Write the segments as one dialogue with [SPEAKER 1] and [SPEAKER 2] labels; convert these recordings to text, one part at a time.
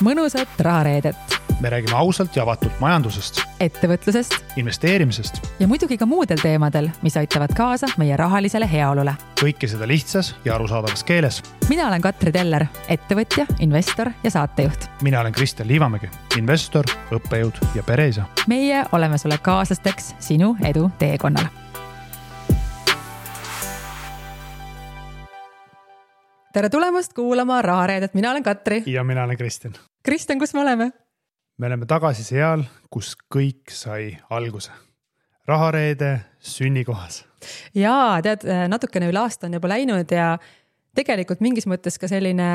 [SPEAKER 1] mõnusat rahareedet.
[SPEAKER 2] Me räägime ausalt ja avatult majandusest,
[SPEAKER 1] ettevõtlusest
[SPEAKER 2] investeerimisest
[SPEAKER 1] ja muidugi ka muudel teemadel, mis aitavad kaasa meie rahalisele heaolule.
[SPEAKER 2] kõike seda lihtsas ja arusaadavas keeles.
[SPEAKER 1] Mina olen Katri Teller, ettevõtja, investor ja saatejuht.
[SPEAKER 2] Mina olen Kristjan Liivamägi, investor, õppejõud ja pereisa.
[SPEAKER 1] Meie oleme sulle kaaslasteks sinu edu teekonnal. Tere tulemast kuulama rahareedet. Mina olen Katri.
[SPEAKER 2] Ja mina olen Kristjan.
[SPEAKER 1] Kristjan, kus me oleme?
[SPEAKER 2] Me oleme tagasi seal, kus kõik sai alguse. Rahareede sünnikohas.
[SPEAKER 1] Jaa, tead, natukene üle aasta on juba läinud ja tegelikult mingis mõttes ka selline,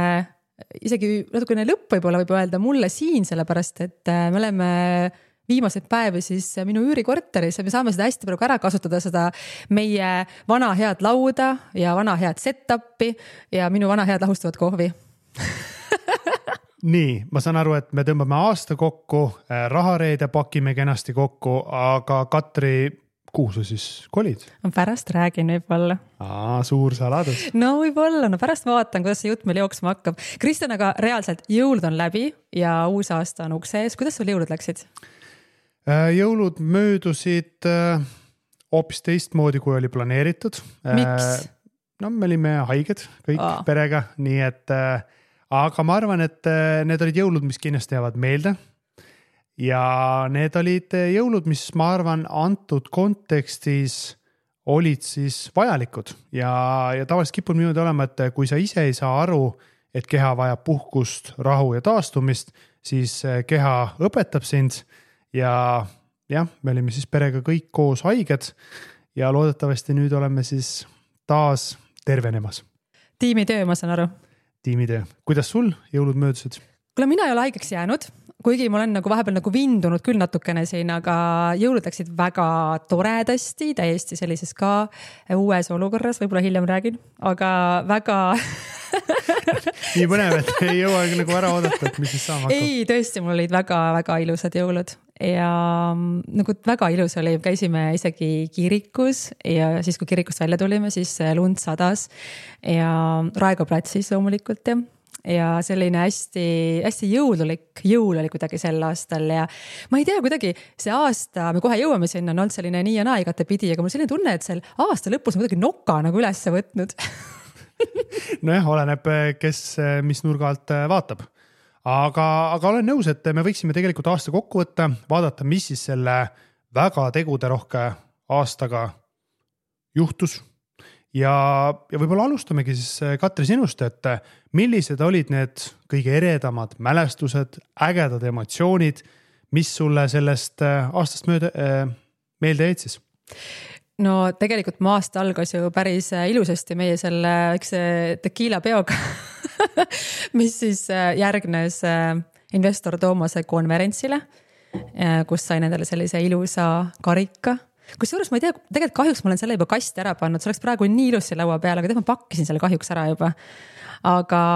[SPEAKER 1] isegi natukene lõpp võib öelda mulle siin, sellepärast, et me oleme viimaseid päevi siis minu üürikorteris ja me saame seda hästi praegu ära kasutada, seda meie vana head lauda ja vana head set-upi ja minu vana head lahustavat kohvi.
[SPEAKER 2] Nii, ma saan aru, et me tõmbame aasta kokku, rahareede pakime kenasti kokku, aga Katri, kuhu sa siis kolid?
[SPEAKER 1] Pärast räägin võib-olla.
[SPEAKER 2] Suur saladus.
[SPEAKER 1] No võib-olla, pärast vaatan, kuidas see jutt meil jooksma hakkab. Kristjan, aga reaalselt jõulud on läbi ja uus aasta on ukse ees. Kuidas sul jõulud läksid?
[SPEAKER 2] Jõulud möödusid hoopis teistmoodi, kui oli planeeritud.
[SPEAKER 1] Miks?
[SPEAKER 2] No me olime haiged kõik perega, nii et aga ma arvan, et need olid jõulud, mis kindlasti jäävad meelde. Ja need olid jõulud, mis ma arvan antud kontekstis olid siis vajalikud. Ja tavaliselt kipub niimoodi olema, et kui sa ise ei saa aru, et keha vajab puhkust, rahu ja taastumist, siis keha õpetab sind. Ja me olime siis perega kõik koos haiged ja loodetavasti nüüd oleme siis taas tervenemas.
[SPEAKER 1] Tiimitöö, ma saan aru.
[SPEAKER 2] Tiimitöö. Kuidas sul jõulud möödusid?
[SPEAKER 1] Kuule, mina ei ole haigeks jäänud, kuigi ma olen vahepeal vindunud küll natukene siin, aga jõulud läksid väga toredasti, täiesti sellises ka uues olukorras, võib-olla hiljem räägin, aga väga...
[SPEAKER 2] Nii põnev, et ei jõua ära oodata, et mis siis saama hakkab.
[SPEAKER 1] Ei, tõesti, mul olid väga ilusad jõulud ja väga ilus oli, käisime isegi kirikus ja siis, kui kirikust välja tulime, siis lund sadas ja Raekoja platsis loomulikult ja selline hästi jõululik jõul oli kuidagi sel aastal ja ma ei tea, kuidagi see aasta, me kohe jõuame sinna, on olnud selline nii ja naa igatepidi, aga mul selline tunne, et sel aasta lõpus on kuidagi noka üles võtnud.
[SPEAKER 2] Nojah, oleneb, kes mis nurga alt vaatab. Aga olen nõus, et me võiksime tegelikult aasta kokku võtta, vaadata, mis siis selle väga teguderohke aastaga juhtus. Ja võib-olla alustamegi siis Katri sinust, et millised olid need kõige eredamad mälestused, ägedad emotsioonid, mis sulle sellest aastast meelde jäid siis?
[SPEAKER 1] No tegelikult mu aasta algas ju päris ilusasti meie selle tequila peoga, mis siis järgnes investor Toomase konverentsile, kus sai nendele sellise ilusa karika. Kusjuures ma ei tea, tegelikult kahjuks ma olen selle juba kasti ära pannud, see oleks praegu nii ilusi laua peal, aga ma pakkisin selle kahjuks ära juba. Aga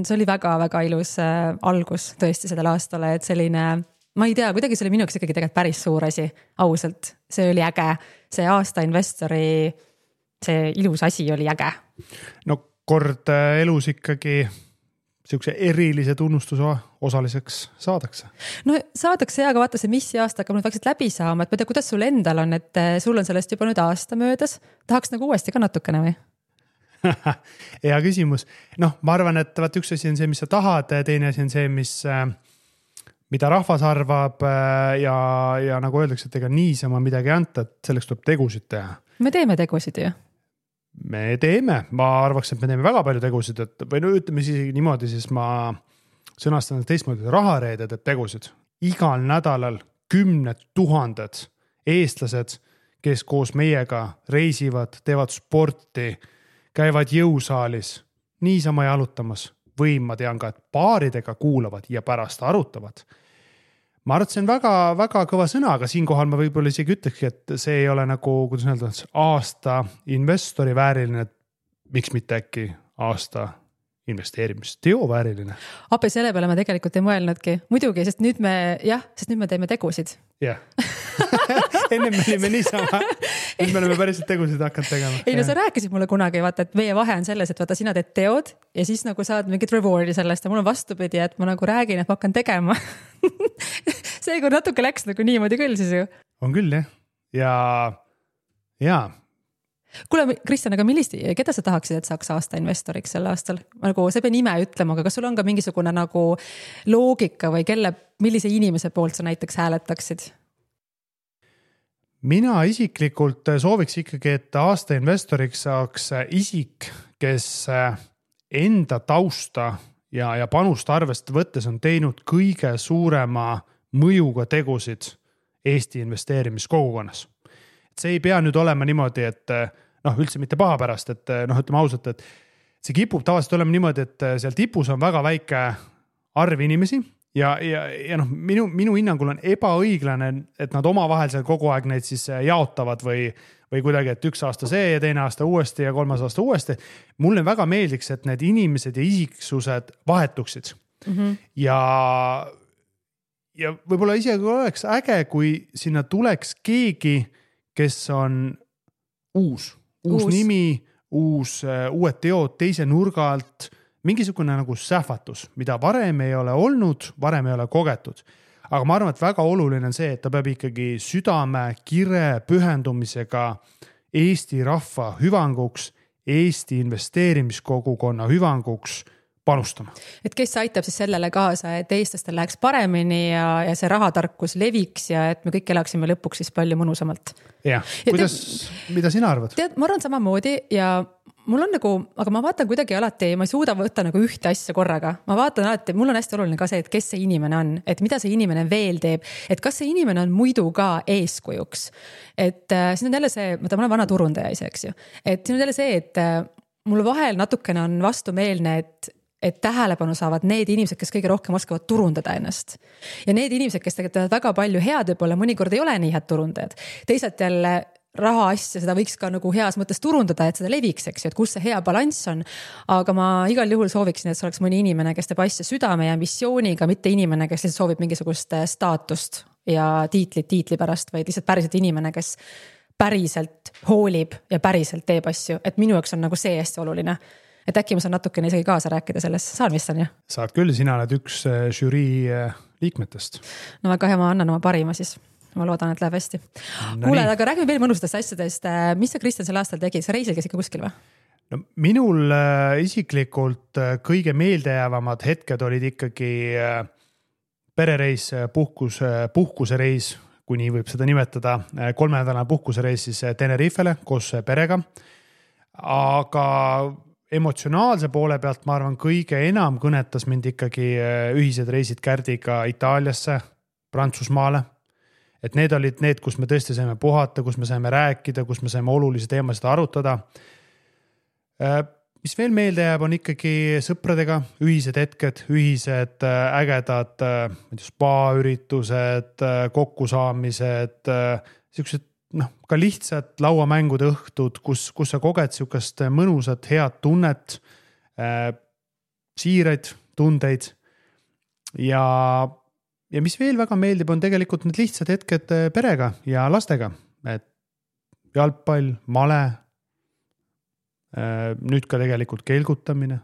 [SPEAKER 1] see oli väga ilus algus tõesti sellel aastale, et selline... Ma ei tea, kuidagi see oli minu jaoks ikkagi tegelikult päris suur asi, ausalt. See oli äge. See aasta investori, see ilus asi oli äge.
[SPEAKER 2] No kord elus ikkagi siukse erilise tunnustuse osaliseks saadakse.
[SPEAKER 1] No saadakse aga vaata see, mis aasta hakkab nüüd vaikselt läbi saama, et ma tea, kuidas sul endal on, et sul on sellest juba nüüd aasta möödas. Tahaks uuesti ka natukene või?
[SPEAKER 2] Hea küsimus. Ma arvan, et üks asi on see, mis sa tahad, teine asi on see, mida rahvas arvab ja nagu öeldakse, et ega niisama midagi anta, et selleks tuleb tegusid teha.
[SPEAKER 1] Me teeme tegusid ju.
[SPEAKER 2] Me teeme. Ma arvaks, et me teeme väga palju tegusid, või ütleme siis niimoodi, siis ma sõnastan teistmoodi rahareede teeb tegusid. Igal nädalal 10 000 eestlased, kes koos meiega reisivad, teevad sporti, käivad jõusaalis, niisama jalutamas. Või ma tean ka, et paaridega kuulavad ja pärast arutavad. Ma arvan, et see on väga kõva sõna, aga siinkohal ma võib-olla isegi ütleks, et see ei ole kuidas öelda, aasta investori vääriline, miks mitte äkki aasta investeerimisteo vääriline.
[SPEAKER 1] Appi selle peale ma tegelikult ei mõelnudki. Muidugi, sest nüüd me teeme tegusid.
[SPEAKER 2] Jah. Enne me olime niisama, nüüd me oleme päriselt tegusid hakanud tegema.
[SPEAKER 1] Ei no sa rääkisid mulle kunagi, vaata, et meie vahe on selles, et vaata sina teed teod ja siis nagu saad mingit rewardi sellest ja mul on vastupidi, et ma nagu räägin, et ma hakkan tegema. Seega natuke läks nagu niimoodi küll siis ju.
[SPEAKER 2] On küll jah. Ja.
[SPEAKER 1] Kuule, Kristjan, aga keda sa tahaksid, et saaks aasta investoriks sel aastal? Nagu sa ei pea nime ütlema, aga kas sul on ka mingisugune nagu loogika või millise inimese poolt sa näiteks hääletaksid?
[SPEAKER 2] Mina isiklikult sooviks ikkagi, et aasta investoriks saaks isik, kes enda tausta ja panust arvest võttes on teinud kõige suurema mõjuga tegusid Eesti investeerimiskogukonnas. See ei pea nüüd olema niimoodi, et üldse mitte paha pärast, et ütleme ausalt, et see kipub tavaliselt olema niimoodi, et seal tipus on väga väike arv inimesi ja minu hinnangul on ebaõiglane, et nad omavahel seal kogu aeg neid siis jaotavad või kuidagi, et üks aasta see ja teine aasta uuesti ja kolmas aasta uuesti. Mulle väga meeldiks, et need inimesed ja isiksused vahetuksid. Ja võib-olla isegi oleks äge, kui sinna tuleks keegi, kes on uus nimi, uued teod teise nurga alt, mingisugune nagu sähvatus, mida varem ei ole olnud, varem ei ole kogetud. Aga ma arvan, et väga oluline on see, et ta peab ikkagi südame, kire, pühendumisega Eesti rahva hüvanguks, Eesti investeerimiskogukonna hüvanguks panustama. Et
[SPEAKER 1] kes aitab siis sellele kaasa, et eestlastel läheks paremini ja see rahatarkus leviks ja et me kõik elaksime lõpuks siis palju mõnusamalt.
[SPEAKER 2] Jah, mida sina arvad?
[SPEAKER 1] Tead, ma arvan samamoodi ja mul on nagu, aga ma vaatan kuidagi alati, ma ei suuda võtta nagu ühte asja korraga. Ma vaatan alati, mul on hästi oluline ka see, et kes see inimene on, et mida see inimene veel teeb, et kas see inimene on muidu ka eeskujuks. Et siin on jälle see, ma olen vana turundaja ise, eks ju. Et siin on jälle see, et mul vahel natukene on vastumeelne, et tähelepanu saavad need inimesed, kes kõige rohkem oskavad turundada ennast. Ja need inimesed, kes teevad väga palju head, võib-olla mõnikord ei ole nii head turundajad. Teisalt jälle raha asja, seda võiks ka nagu heas mõttes turundada, et seda leviks, eks ju, et kus see hea balanss on. Aga ma igal juhul sooviksin, et see oleks mõni inimene, kes teeb asja südame ja missiooniga, mitte inimene, kes lihtsalt soovib mingisugust staatust ja tiitli pärast, vaid lihtsalt päriselt inimene, kes päriselt hoolib ja päriselt teeb asju. Et minu jaoks on nagu see hästi oluline. Et äkki ma saan natukene isegi kaasa rääkida sellest. Saan vist on, jah?
[SPEAKER 2] Saad küll, sina oled üks žürii liikmetest.
[SPEAKER 1] No väga hea, ma annan oma parima siis. Ma loodan, et läheb hästi. Kuule, aga räägime veel mõnustast asjadest. Mis sa, Kristjan, sel aastal tegid? Sa reisil käis ikka kuskil või?
[SPEAKER 2] No, minul isiklikult kõige meeldejäävamad hetked olid ikkagi perereis, puhkusereis, kui nii võib seda nimetada, 3-nädalane puhkusereis siis Tenerifele koos perega. Aga emotsionaalse poole pealt, ma arvan, kõige enam kõnetas mind ikkagi ühised reisid Kärdiga Itaaliasse, Prantsusmaale. Et need olid need, kus me tõesti saime puhata, kus me saime rääkida, kus me saime olulisi teemasid arutada. Mis veel meelde jääb, on ikkagi sõpradega ühised hetked, ühised ägedad spa-üritused, kokkusaamised, sellised ka lihtsalt lauamängude õhtud, kus sa koged sihukest mõnusat, head tunnet, siiraid tundeid ja mis veel väga meeldib, on tegelikult need lihtsad hetked perega ja lastega, et jalgpall, male, nüüd ka tegelikult kelgutamine,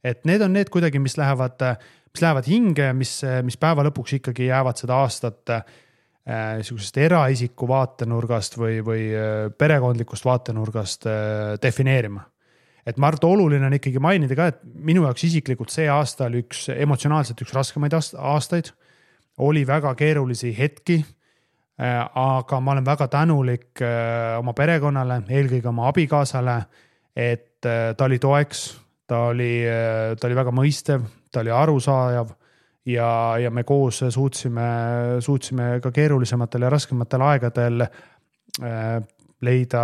[SPEAKER 2] et need on need kuidagi, mis lähevad hinge, mis päeva lõpuks ikkagi jäävad seda aastat eraisiku vaatenurgast või perekondlikust vaatenurgast defineerima. Et ma arvan, oluline on ikkagi mainida ka, et minu jaoks isiklikult see aasta oli emotsionaalselt üks raskemaid aastaid, oli väga keerulisi hetki, aga ma olen väga tänulik oma perekonnale, eelkõige oma abikaasale, et ta oli toeks, ta oli väga mõistev, ta oli arusaajav, ja me koos suutsime ka keerulisematel ja raskematel aegadel leida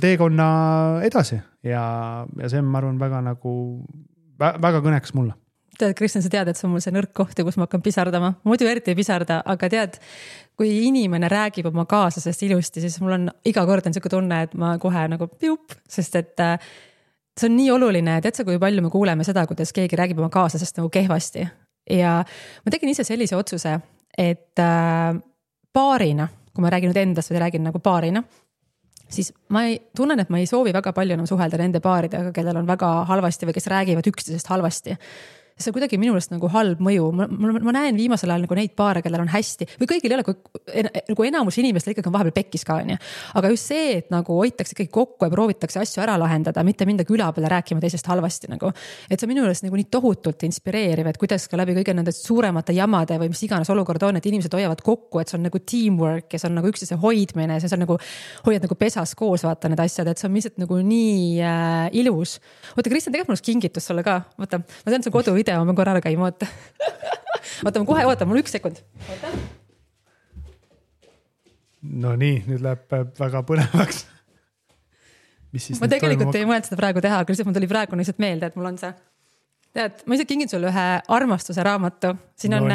[SPEAKER 2] teekonna edasi ja see on, ma arvan, väga kõneks mulle.
[SPEAKER 1] Tead, Kristjan, sa tead, et see on mul see nõrk koht, kus ma hakkan pisardama. Muidu eriti ei pisarda, aga tead, kui inimene räägib oma kaaslasest ilusti, siis mul on iga kord on selline tunne, et ma kohe nagu piup, sest et see on nii oluline, tead sa, kui palju me kuuleme seda, kuidas keegi räägib oma kaaslasest nagu kehvasti. Ja ma tegin ise sellise otsuse, et paarina, kui ma räägin nüüd endast või räägin nagu paarina, siis ma tunnen, et ma ei soovi väga palju enam suhelda nende paaridega, kellel on väga halvasti või kes räägivad üksteisest halvasti. See on kuidagi minulest nagu halb mõju. Ma näen viimasel ajal nagu neid paare, kellel on hästi või kõigil ei ole, nagu enamus inimestel ikkagi on vahepeal pekkis ka, onju. Aga just see, et nagu hoitakse ikkagi kokku ja proovitakse asju ära lahendada, mitte minda küla peale rääkima teisest halvasti nagu. Et see on minulest nagu nii tohutult inspireeriv, et kuidas ka läbi kõige nende suuremate jamade või mis iganes olukord on, et inimesed hoiavad kokku, et see on nagu teamwork ja see on nagu üksteise hoidmine, see on nagu hoiad nagu pesas koos, vaata need asjad, et see on lihtsalt nagu nii ilus. Oota, Kristjan, tegelikult mul kingitus sulle ka. Oota, ma tean, see kodu video, ma korra ära käima, oota. Oota, ma kohe, oota, mul 1 sekund. Oota.
[SPEAKER 2] No nii, nüüd läheb väga põnevaks.
[SPEAKER 1] Ma tegelikult ei mõelnud seda praegu teha, aga lihtsalt mul tuli praegu lihtsalt meelde, et mul on see. Tead, ma ise kingin sulle ühe armastuse raamatu. Siin on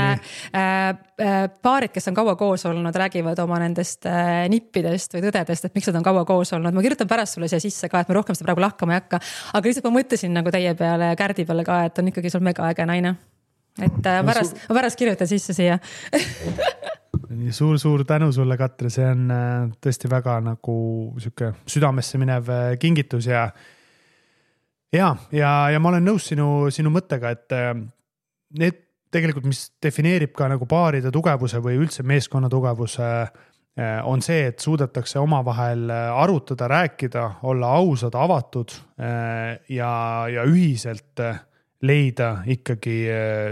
[SPEAKER 1] paarid, kes on kaua koos olnud, räägivad oma nendest nippidest või tõdedest, et miks nad on kaua koos olnud. Ma kirjutan pärast sulle siia sisse ka, et ma rohkem seda praegu lahkama ei hakka. Aga lihtsalt ma mõtlesin nagu teie peale ja Kärdi peale ka, et on ikkagi sul mega äge naine. Et ma pärast kirjutan sisse siia.
[SPEAKER 2] Nii suur tänu sulle, Katri. See on tõesti väga nagu siuke südamesse minev kingitus ja ma olen nõus sinu mõttega, et need tegelikult, mis defineerib ka nagu paaride tugevuse või üldse meeskonna tugevuse, on see, et suudetakse omavahel arutada, rääkida, olla ausad, avatud ja ühiselt leida ikkagi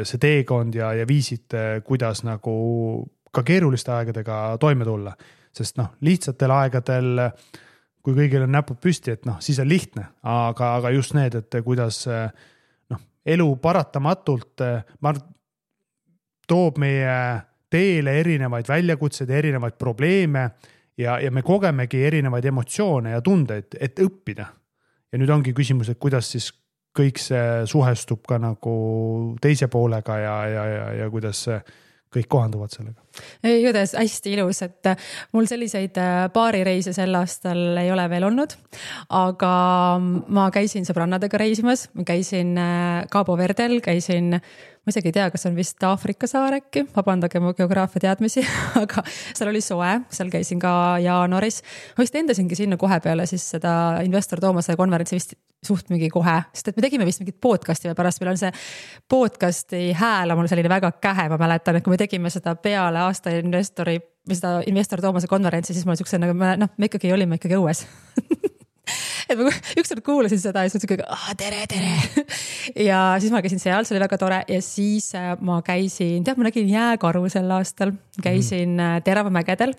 [SPEAKER 2] see teekond ja viisid, kuidas nagu ka keeruliste aegadega toime tulla. Sest lihtsatel aegadel, kui kõigil on näpud püsti, et siis on lihtne, aga just need, et kuidas elu paratamatult toob meie teele erinevaid väljakutseid, erinevaid probleeme ja me kogemegi erinevaid emotsioone ja tundeid, et õppida. Ja nüüd ongi küsimus, et kuidas siis kõik see suhestub ka nagu teise poolega ja kuidas kõik kohanduvad sellega.
[SPEAKER 1] Judes, hästi ilus, et mul selliseid paarireise sel aastal ei ole veel olnud, aga ma käisin sõbrannadega reisimas, ma käisin Cabo Verdel, ma isegi ei tea, kas on vist Aafrika saar äkki, vabandage mu geograafia teadmisi, aga seal oli soe, seal käisin ka jaanuaris. Ma vist endasingi sinna kohe peale siis seda Investor Toomase konverentsi vist suht mingi kohe, sest et me tegime vist mingit podcasti või pärast meil on see podcasti hääl on mul selline väga kähe, ma mäletan, et kui me tegime seda peale aasta Investor Toomase konverentsi, siis mul siukse, me ikkagi olime ikkagi õues. Et ma ükskord kuulasin seda ja siis tere. Ja siis ma käisin seal, see oli väga tore ja siis ma käisin, ma nägin jääkaru sel aastal, käisin Teravamägedel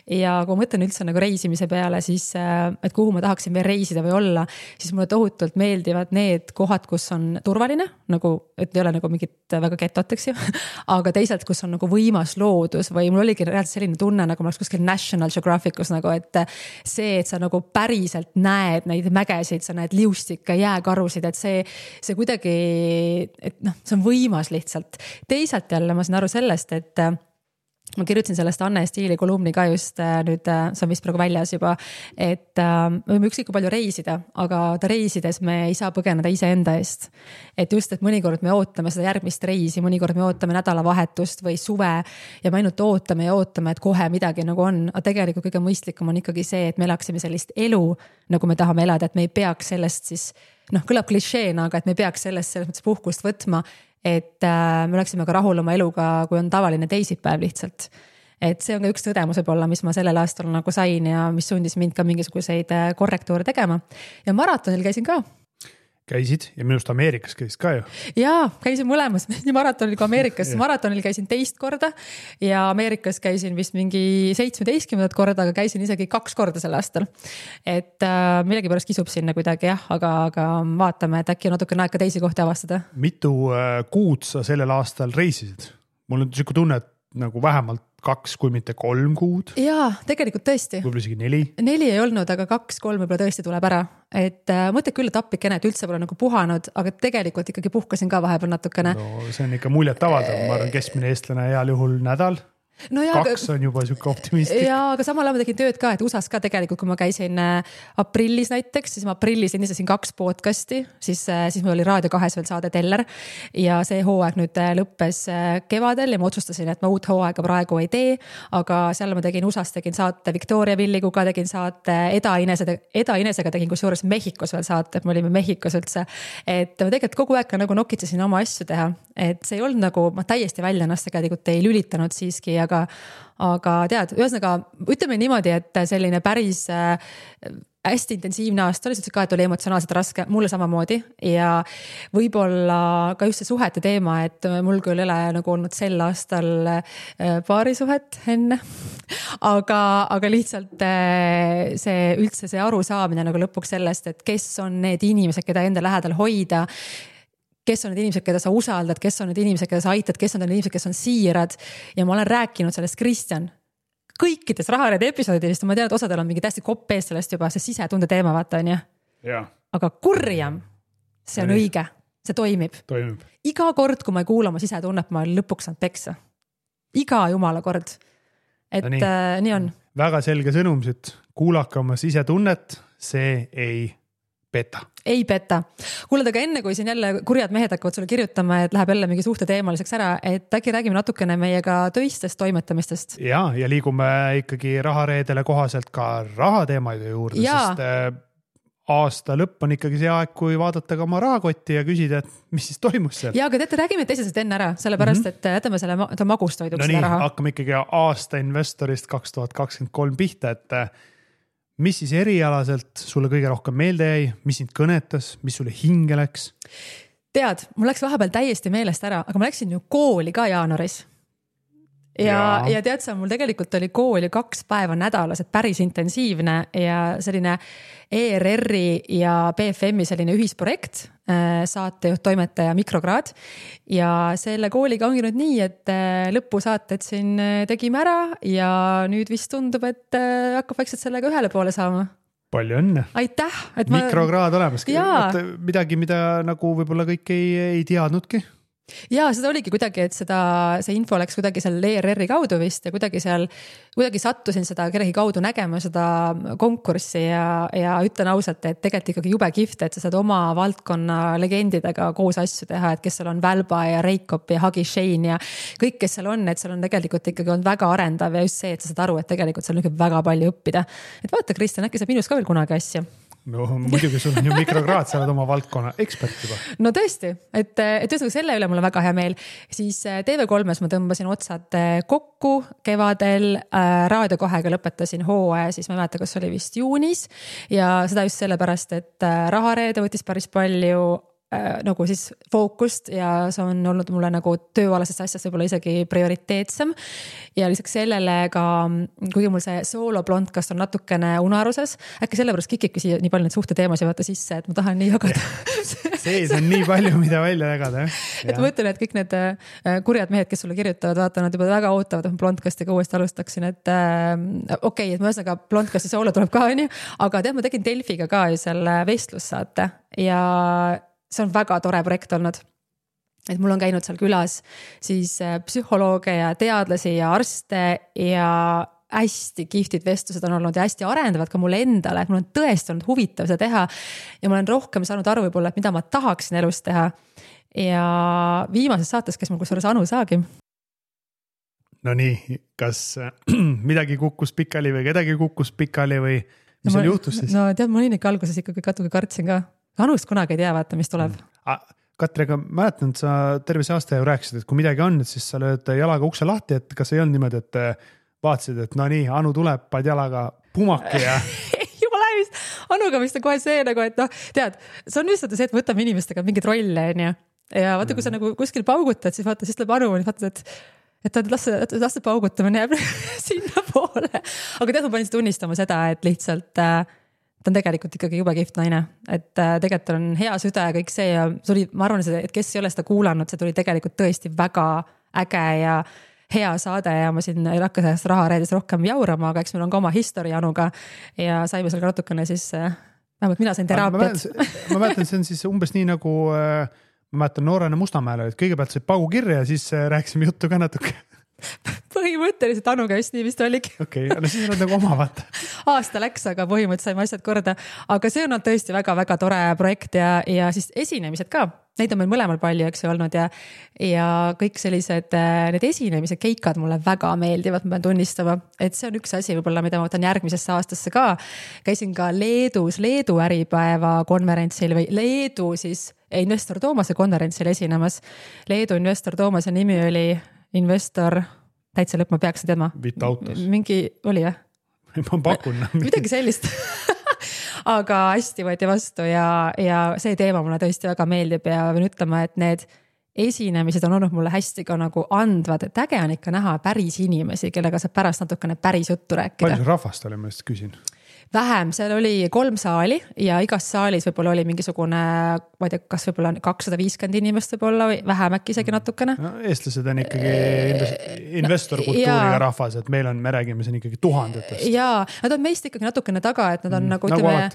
[SPEAKER 1] ja kui ma mõtlen üldse nagu reisimise peale, siis et kuhu ma tahaksin veel reisida või olla, siis mulle tohutult meeldivad need kohad, kus on turvaline, nagu, et ei ole nagu mingit väga getot, eks ju, aga teisalt, kus on nagu võimas loodus või mul oligi reaalselt selline tunne, nagu ma oleks kuskil National Geographicus nagu, et see, et sa nagu päriselt näed neid mägesid, sa näed liustikke, jääkarusid, et see kuidagi, et see on võimas lihtsalt. Teisalt jälle ma saan aru sellest, et ma kirjutasin sellest Anne Stiili kolumni ka just nüüd, see on vist praegu väljas juba, et me võime üksikku palju reisida, aga reisides me ei saa põgeneda iseenda eest. Et just, et mõnikord me ootame seda järgmist reisi, mõnikord me ootame nädalavahetust või suve ja me ainult ootame, et kohe midagi nagu on. Aga tegelikult kõige mõistlikum on ikkagi see, et me elaksime sellist elu, nagu me tahame elada, et me ei peaks sellest siis, kõlab klišeena, aga et me ei peaks sellest selles mõttes puhkust võtma, et me oleksime ka rahul oma eluga, kui on tavaline teisipäev lihtsalt. Et see on ka üks tõdemus võib-olla, mis ma sellel aastal nagu sain ja mis sundis mind ka mingisuguseid korrektuure tegema. Ja maratonil käisin ka.
[SPEAKER 2] Käisid ja minust Ameerikas käisid ka ju.
[SPEAKER 1] Jaa, käisin mõlemas, nii maratonil kui Ameerikas. Maratonil käisin 2 korda ja Ameerikas käisin vist mingi 17 korda, aga käisin isegi 2 korda sel aastal. Et millegi pärast kisub sinna kuidagi jah, aga vaatame, et äkki natuke aeg ka teisi kohti avastada.
[SPEAKER 2] Mitu kuud sa sellel aastal reisisid? Mul on siuke tunne, et nagu vähemalt 2, kui mitte 3 kuud. Jaa,
[SPEAKER 1] tegelikult tõesti.
[SPEAKER 2] Võib-olla isegi 4.
[SPEAKER 1] 4 ei olnud, aga 2-3 võib-olla tõesti tuleb ära. Et mõtled küll, et appikene, et üldse pole nagu puhanud, aga tegelikult ikkagi puhkasin ka vahepeal natukene.
[SPEAKER 2] No see on ikka muljet avaldav, ma arvan keskmine eestlane heal juhul nädal.
[SPEAKER 1] No ja,
[SPEAKER 2] 2 on juba siuke optimistlik.
[SPEAKER 1] Ja, aga samal ajal ma tegin tööd ka, et USAs ka tegelikult, kui ma käisin aprillis näiteks, siis ma aprillis endistasin 2 podcasti, siis mul oli Raadio 2 veel saade Teller ja see hooaeg nüüd lõppes kevadel ja ma otsustasin, et ma uut hooaega praegu ei tee, aga seal ma tegin USAs, tegin saate Victoria Villiguga, tegin saate Eda Inesega tegin kusjuures Mehhikos veel saate, et me olime Mehhikos üldse, et ma tegelikult kogu aeg nagu nokitsesin oma asju teha, et see ei olnud nagu, ma täiesti välja ennast tegelikult ei lülitanud siiski, aga tead, ühesõnaga ütleme niimoodi, et selline päris hästi intensiivne aasta oli, ka et oli emotsionaalselt raske, mulle samamoodi ja võib-olla ka just see suhete teema, et mul küll ei ole nagu olnud sel aastal paarisuhet enne, aga lihtsalt see üldse see arusaamine nagu lõpuks sellest, et kes on need inimesed, keda enda lähedal hoida, kes on need inimesed, keda sa usaldad, kes on need inimesed, keda sa aitad, kes on need inimesed, kes on siirad ja ma olen rääkinud sellest Kristjan kõikides Rahareede episoodidest, ma tean, et osadel on mingi täiesti kopp ees sellest juba, see sisetunde teema vaata on ju. Aga kurjam, see on õige, see toimib. Iga kord, kui ma ei kuula oma sisetunnet, ma lõpuks saan peksa. Iga jumala kord. Et nii on.
[SPEAKER 2] Väga selge sõnumsid, kuulake oma sisetunnet, see ei peta.
[SPEAKER 1] Ei peta. Kuulad, aga enne kui siin jälle kurjad mehed hakkavad sulle kirjutama, et läheb jälle mingi suhte teemaliseks ära, et äkki räägime natukene meiega töistest toimetamistest.
[SPEAKER 2] Ja liigume ikkagi Rahareedele kohaselt ka rahateemaide juurde, sest aasta lõpp on ikkagi see aeg, kui vaadata ka oma rahakotti ja küsida, et mis siis toimus seal.
[SPEAKER 1] Ja, aga räägime teisest enne ära, sellepärast, et jätame selle magustoiduks
[SPEAKER 2] seda raha. Hakkame ikkagi aasta investorist 2023 pihta, et mis siis erialaselt sulle kõige rohkem meelde jäi, mis sind kõnetas, mis sulle hinge läks? Tead,
[SPEAKER 1] mul läks vahepeal täiesti meelest ära, aga ma läksin ju kooli ka jaanuaris. Ja tead sa, mul tegelikult oli kooli 2 päeva nädalas, et päris intensiivne ja selline ERR-i ja BFM-i selline ühisprojekt, saatejuht, toimetaja, mikrokraad. Ja selle kooliga ongi nüüd nii, et lõpusaated siin tegime ära ja nüüd vist tundub, et hakkab vaikselt sellega ühele poole saama.
[SPEAKER 2] Palju õnne.
[SPEAKER 1] Aitäh.
[SPEAKER 2] Mikrokraad olemas. Midagi, mida nagu võib-olla kõik ei teadnudki.
[SPEAKER 1] Ja seda oligi kuidagi, et see info läks kuidagi seal ERR-i kaudu vist ja kuidagi sattusin seda kellegi kaudu nägema seda konkurssi ja ütlen ausalt, et tegelikult ikkagi jube kihvt, et sa saad oma valdkonna legendidega koos asju teha, et kes seal on Välba ja Reikop ja Hagi Shane ja kõik, kes seal on, et seal on tegelikult ikkagi on väga arendav ja just see, et sa saad aru, et tegelikult seal on väga palju õppida. Et vaata, Kristjan, äkki saab minus ka veel kunagi asja.
[SPEAKER 2] No muidugi sul on ju mikrokraad, sa oled oma valdkonna ekspert juba.
[SPEAKER 1] No tõesti, et ühesõnaga selle üle mul on väga hea meel. Siis TV3-s ma tõmbasin otsad kokku kevadel, Raadio 2-ga lõpetasin hooaja, siis ma ei mäleta, kas oli vist juunis ja seda just sellepärast, et Rahareede võttis päris palju nagu siis fookust ja see on olnud mulle nagu tööalasest asjast võib-olla isegi prioriteetsem ja lisaks sellele ka, kuigi mul see sooloblondkast on natukene unaruses, äkki sellepärast kikibki siia nii palju neid suhte teemasid vaata sisse, et ma tahan nii jagada.
[SPEAKER 2] Sees on nii palju, mida välja jagada.
[SPEAKER 1] Et ma mõtlen, et kõik need kurjad mehed, kes sulle kirjutavad, vaata, nad juba väga ootavad, et ma blondkastiga uuesti alustaksin, et okei, et ma ühesõnaga blondkasti soolo tuleb ka, aga tead, ma tegin Delfiga ka ju selle vestlussaate ja see on väga tore projekt olnud. Et mul on käinud seal külas siis psühholooge ja teadlasi ja arste ja hästi kihvtid vestlused on olnud ja hästi arendavad ka mulle endale, et mul on tõesti olnud huvitav seda teha ja ma olen rohkem saanud aru võib-olla, et mida ma tahaksin elus teha. Ja viimases saates, kes mul kusjuures Anu Saagim.
[SPEAKER 2] No nii, kas midagi kukkus pikali või kedagi kukkus pikali või mis seal juhtus siis?
[SPEAKER 1] No tead, ma olin ikka alguses ikkagi katugi kartsin ka. Anust kunagi ei tea, vaata, mis tuleb.
[SPEAKER 2] Katri, aga mäletan, et sa terve see aasta ju rääkisid, et kui midagi on, siis sa lööd jalaga ukse lahti, et kas ei olnud niimoodi, et vaatasid, et no nii, Anu tuleb, paad jalaga pumaki ja...
[SPEAKER 1] Jumala vist, Anuga vist on kohe see nagu, et noh, tead, see on lihtsalt see, et võtame inimestega mingid rolle, ja vaata, kui sa nagu kuskil paugutad, siis vaata, siis tuleb Anu, vaatad, et lasse paugutamine jääb sinna poole. Aga tead, ma panin tunnistama seda, et lihtsalt... ta on tegelikult ikkagi jube kihvt naine, et tegelikult on hea süda ja kõik see ja tuli, ma arvan, et kes ei ole seda kuulanud, see tuli tegelikult tõesti väga äge ja hea saade ja ma siin ei hakka sellest Rahareedis rohkem jaurama, aga eks meil on ka oma history Anuga ja saime seal ka natukene siis, vähemalt mina sain teraapiat.
[SPEAKER 2] Ma mäletan, see on siis umbes nii nagu, ma mäletan noorena Mustamäele, et kõigepealt sai paugu kirja ja siis rääkisime juttu ka natuke.
[SPEAKER 1] põhimõtteliselt Anuga just nii vist oligi.
[SPEAKER 2] Okei, no siis on nagu oma vaata.
[SPEAKER 1] Aasta läks, aga põhimõtteliselt saime asjad korda. Aga see on tõesti väga-väga tore projekt ja siis esinemised ka. Neid on meil mõlemal palju, eks ju, olnud ja kõik sellised, need esinemised, keikad mulle väga meeldivad, ma pean tunnistama, et see on üks asi võib-olla, mida ma võtan järgmisesse aastasse ka. Käisin ka Leedu äripäeva konverentsil või Leedu siis Investor Toomase konverentsil esinemas. Leedu Investor Toomase nimi oli Investor, täitsa lõpp, ma peaks teadma.
[SPEAKER 2] Vitautos.
[SPEAKER 1] Mingi oli, jah?
[SPEAKER 2] Ma pakun.
[SPEAKER 1] Midagi sellist. Aga hästi võeti vastu ja see teema mulle tõesti väga meeldib ja võin ütlema, et need esinemised on olnud mulle hästi ka nagu andvad, et äge on ikka näha päris inimesi, kellega saab pärast natukene päris juttu rääkida.
[SPEAKER 2] Palju rahvast oli, ma just küsin?
[SPEAKER 1] Vähem, seal oli 3 saali ja igas saalis võib-olla oli mingisugune, ma ei tea, kas võib-olla 250 inimest võib-olla või vähem äkki isegi natukene.
[SPEAKER 2] No, eestlased on ikkagi investorkultuuriga rahvas, et me räägime siin ikkagi tuhandetest.
[SPEAKER 1] Jaa, nad on meist ikkagi natukene taga, et nad on nagu ütleme...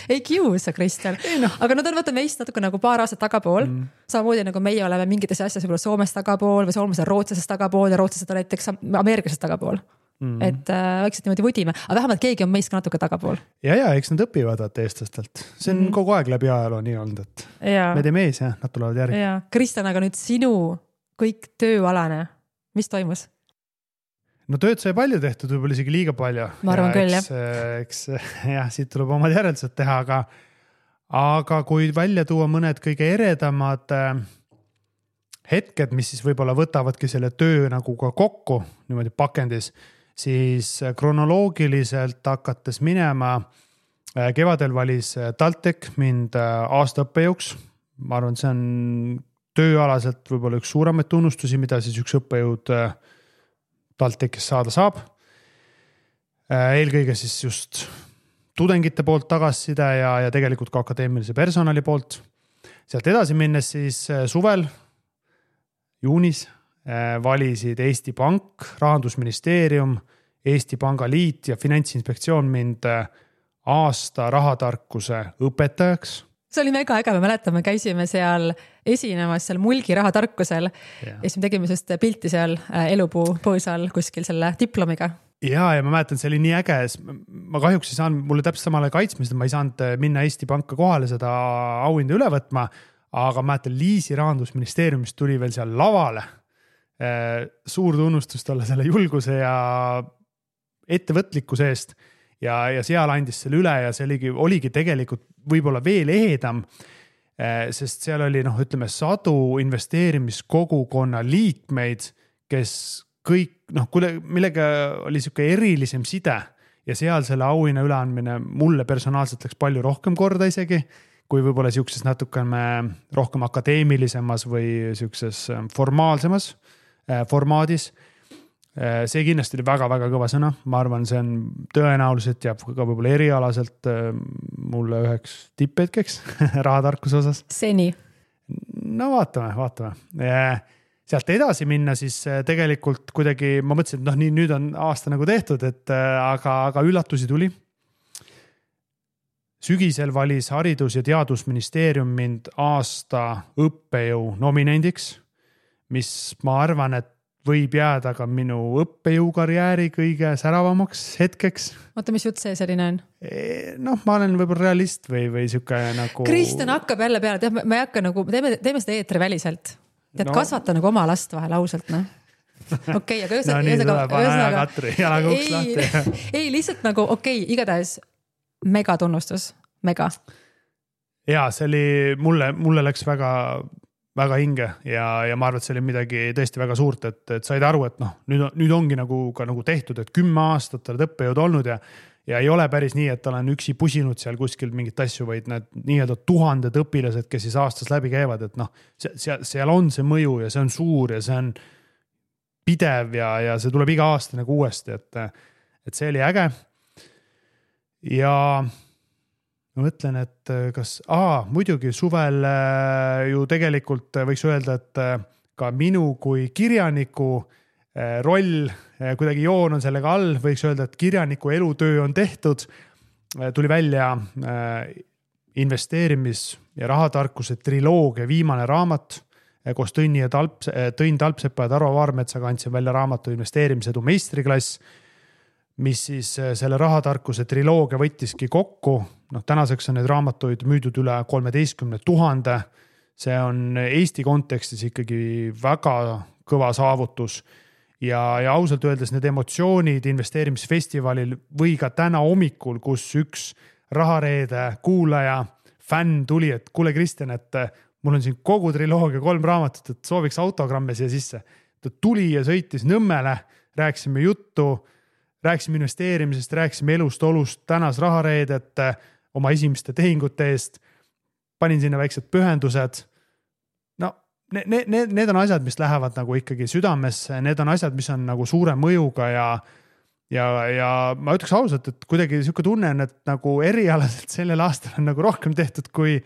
[SPEAKER 1] ei kiusa, Kristjan. Aga nad on vaata meist natuke nagu paar aastat tagapool. Samamoodi nagu meie oleme mingites asjas võib-olla Soomest tagapool või Soomest rootslasest tagapool ja rootslased on näiteks ameeriklasest tagapool. Et vaikselt niimoodi võdime, aga vähemalt keegi on meist ka natuke tagapool.
[SPEAKER 2] Ja, eks nad õpivad eestlastelt. See on kogu aeg läbi ajaloo nii olnud, et me teeme ees ja nad tulevad järgi.
[SPEAKER 1] Kristjan, aga nüüd sinu kõik tööalane, mis toimus?
[SPEAKER 2] No tööd sai palju tehtud, võib-olla isegi liiga palju.
[SPEAKER 1] Ma arvan küll,
[SPEAKER 2] eks siit tuleb omad järeldused teha, aga kui välja tuua mõned kõige eredamad hetked, mis siis võib-olla võtavadki selle töö nagu ka kokku niimoodi pakendis, siis kronoloogiliselt hakates minema, kevadel valis TalTech mind aasta õppejõuks. Ma arvan, see on tööalaselt võib-olla üks suuremaid tunnustusi, mida siis üks õppejõud TalTechis saada saab. Eelkõige siis just tudengite poolt tagasiside ja tegelikult ka akadeemilise personali poolt. Sealt edasi minnes siis suvel, juunis, valisid Eesti Pank, Rahandusministeerium, Eesti Pangaliit ja Finantsinspektsioon mind aasta rahatarkuse õpetajaks.
[SPEAKER 1] See oli mega äge, me mäletame, käisime seal esinemas seal Mulgi rahatarkusel ja siis me tegime just pilti seal elupuu põõsal kuskil selle diplomiga.
[SPEAKER 2] Ja ma mäletan, see oli nii äge, ma kahjuks ei saanud, mulle täpselt samale kaitsmised, ma ei saanud minna Eesti Panka kohale seda auhinda üle võtma, aga mäletan, Liisi Rahandusministeeriumist tuli veel seal lavale. Suur tunnustus talle selle julguse ja ettevõtlikkuse eest ja seal andis selle üle ja see oligi tegelikult võib-olla veel ehedam, sest seal oli, ütleme, 100 investeerimiskogukonna liikmeid, kes kõik, millega oli siuke erilisem side ja seal selle auhinna üleandmine mulle personaalselt läks palju rohkem korda isegi, kui võib-olla siukses natukene rohkem akadeemilisemas või siukses formaalsemas formaadis. See kindlasti oli väga-väga kõva sõna. Ma arvan, see on tõenäoliselt jääb ka võib-olla erialaselt mulle üheks tipphetkeks rahatarkuse osas.
[SPEAKER 1] Seni.
[SPEAKER 2] No vaatame. Sealt edasi minna siis tegelikult kuidagi, ma mõtlesin, et nüüd on aasta nagu tehtud, aga üllatusi tuli. Sügisel valis Haridus- ja Teadusministeerium mind aasta õppejõu nominendiks, mis ma arvan, et võib jääda ka minu õppejõukarjääri kõige säravamaks hetkeks.
[SPEAKER 1] Oota, mis jutt see selline on?
[SPEAKER 2] Ma olen võib-olla realist või siuke nagu...
[SPEAKER 1] Kristjan hakkab jälle peale, ma ei hakka nagu, teeme seda eetri väliselt. Tead, kasvata nagu oma last vahel ausalt, Okei, aga ei, lihtsalt nagu igatahes mega tunnustus, mega.
[SPEAKER 2] Ja see oli, mulle läks väga hinge ja ma arvan, et see oli midagi tõesti väga suurt, et said aru, et nüüd ongi nagu tehtud, et 10 aastat oled õppejõud olnud ja ei ole päris nii, et olen üksi pusinud seal kuskil mingit asju, vaid need nii-öelda 1000 õpilased, kes siis aastas läbi käivad, et seal on see mõju ja see on suur ja see on pidev ja see tuleb iga aasta nagu uuesti, et see oli äge. Ja ma mõtlen, et muidugi suvel ju tegelikult võiks öelda, et ka minu kui kirjaniku roll, kuidagi joon on sellega all, võiks öelda, et kirjaniku elutöö on tehtud. Tuli välja investeerimis- ja rahatarkuse triloogia viimane raamat, koos Tõnn Talpsepa ja Tarvo Vaarmetsaga andsin välja raamatu Investeerimisedu meistriklass, mis siis selle rahatarkuse triloogia võttiski kokku. Tänaseks on need raamatuid müüdud üle 13 000. See on Eesti kontekstis ikkagi väga kõva saavutus. Ja ausalt öeldes need emotsioonid investeerimisfestivalil või ka täna hommikul, kus üks Rahareede kuulaja, fänn tuli, et kuule Kristjan, et mul on siin kogu triloogia 3 raamatut, et sooviks autogramme siia sisse. Ta tuli ja sõitis Nõmmele, rääkisime juttu, rääkisime investeerimisest, rääkisime elust, olust, tänas Rahareedet oma esimeste tehingute eest, panin sinna väiksed pühendused. Need on asjad, mis lähevad nagu ikkagi südamesse, need on asjad, mis on nagu suure mõjuga ja ma ütleks ausalt, et kuidagi niisugune tunne on, et nagu erialaselt sellel aastal on nagu rohkem tehtud kui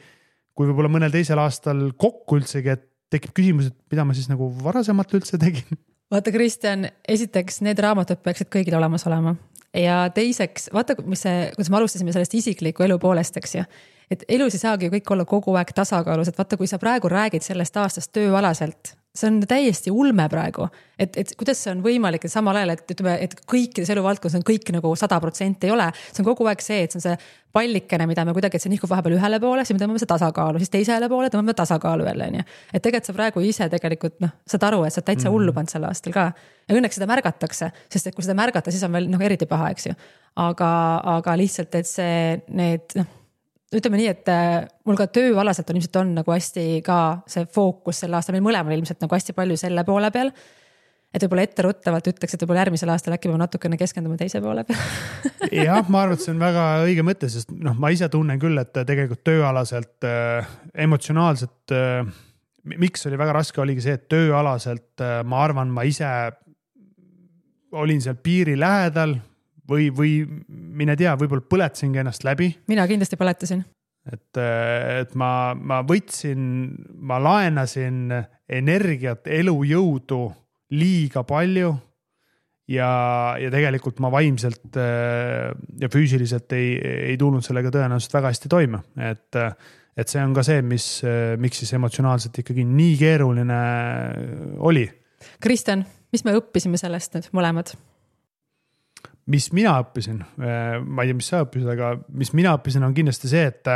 [SPEAKER 2] võib-olla mõnel teisel aastal kokku üldsegi, et tekib küsimus, et mida ma siis nagu varasemalt üldse tegin.
[SPEAKER 1] Vaata, Kristjan, esiteks need raamatud peaksid kõigil olemas olema. Ja teiseks, vaata, kuidas me alustasime sellest isikliku elu poolest, eks ju. Et elus ei saagi kõik olla kogu aeg tasakaalus, et vaata, kui sa praegu räägid sellest aastast tööalaselt, see on täiesti ulme praegu, et kuidas see on võimalik, et samal ajal, et kõikides eluvaldkonnas on kõik nagu 100% ei ole, see on kogu aeg see, et see on see pallikene, mida me kuidagi, et see nihkub vahepeal ühele poole, siis me tõmbame see tasakaalu, siis teisele poole tõmbame tasakaalu jälle, nii. Et tegelikult sa praegu ise tegelikult, saad aru, et sa täitsa hullu pand sel aastal ka. Ja õnneks seda märgatakse, sest et kui seda märgata, siis on veel eriti paha, eks ju. Aga lihtsalt, et see ütleme nii, et mul ka tööalaselt on ilmselt on nagu hästi ka see fookus sel aastal, meil mõlemal ilmselt nagu hästi palju selle poole peal, et võib-olla etteruttavalt ütleks, et võib-olla järgmisel aastal äkki peame natukene keskendume teise poole peal.
[SPEAKER 2] Jah, ma arvan, et see on väga õige mõte, sest ma ise tunnen küll, et tegelikult tööalaselt emotsionaalselt, miks oli väga raske, oligi see, et tööalaselt ma arvan, ma ise olin seal piiri lähedal, või mine tea, võib-olla põletasingi ennast läbi.
[SPEAKER 1] Mina kindlasti põletasin.
[SPEAKER 2] Et ma võtsin, ma laenasin energiat, elujõudu liiga palju ja tegelikult ma vaimselt ja füüsiliselt ei tulnud sellega tõenäoliselt väga hästi toime. Et see on ka see, miks siis emotsionaalselt ikkagi nii keeruline oli.
[SPEAKER 1] Kristjan, mis me õppisime sellest nüüd mõlemad?
[SPEAKER 2] Mis mina õppisin, ma ei tea, mis sa õppisid, aga mis mina õppisin on kindlasti see, et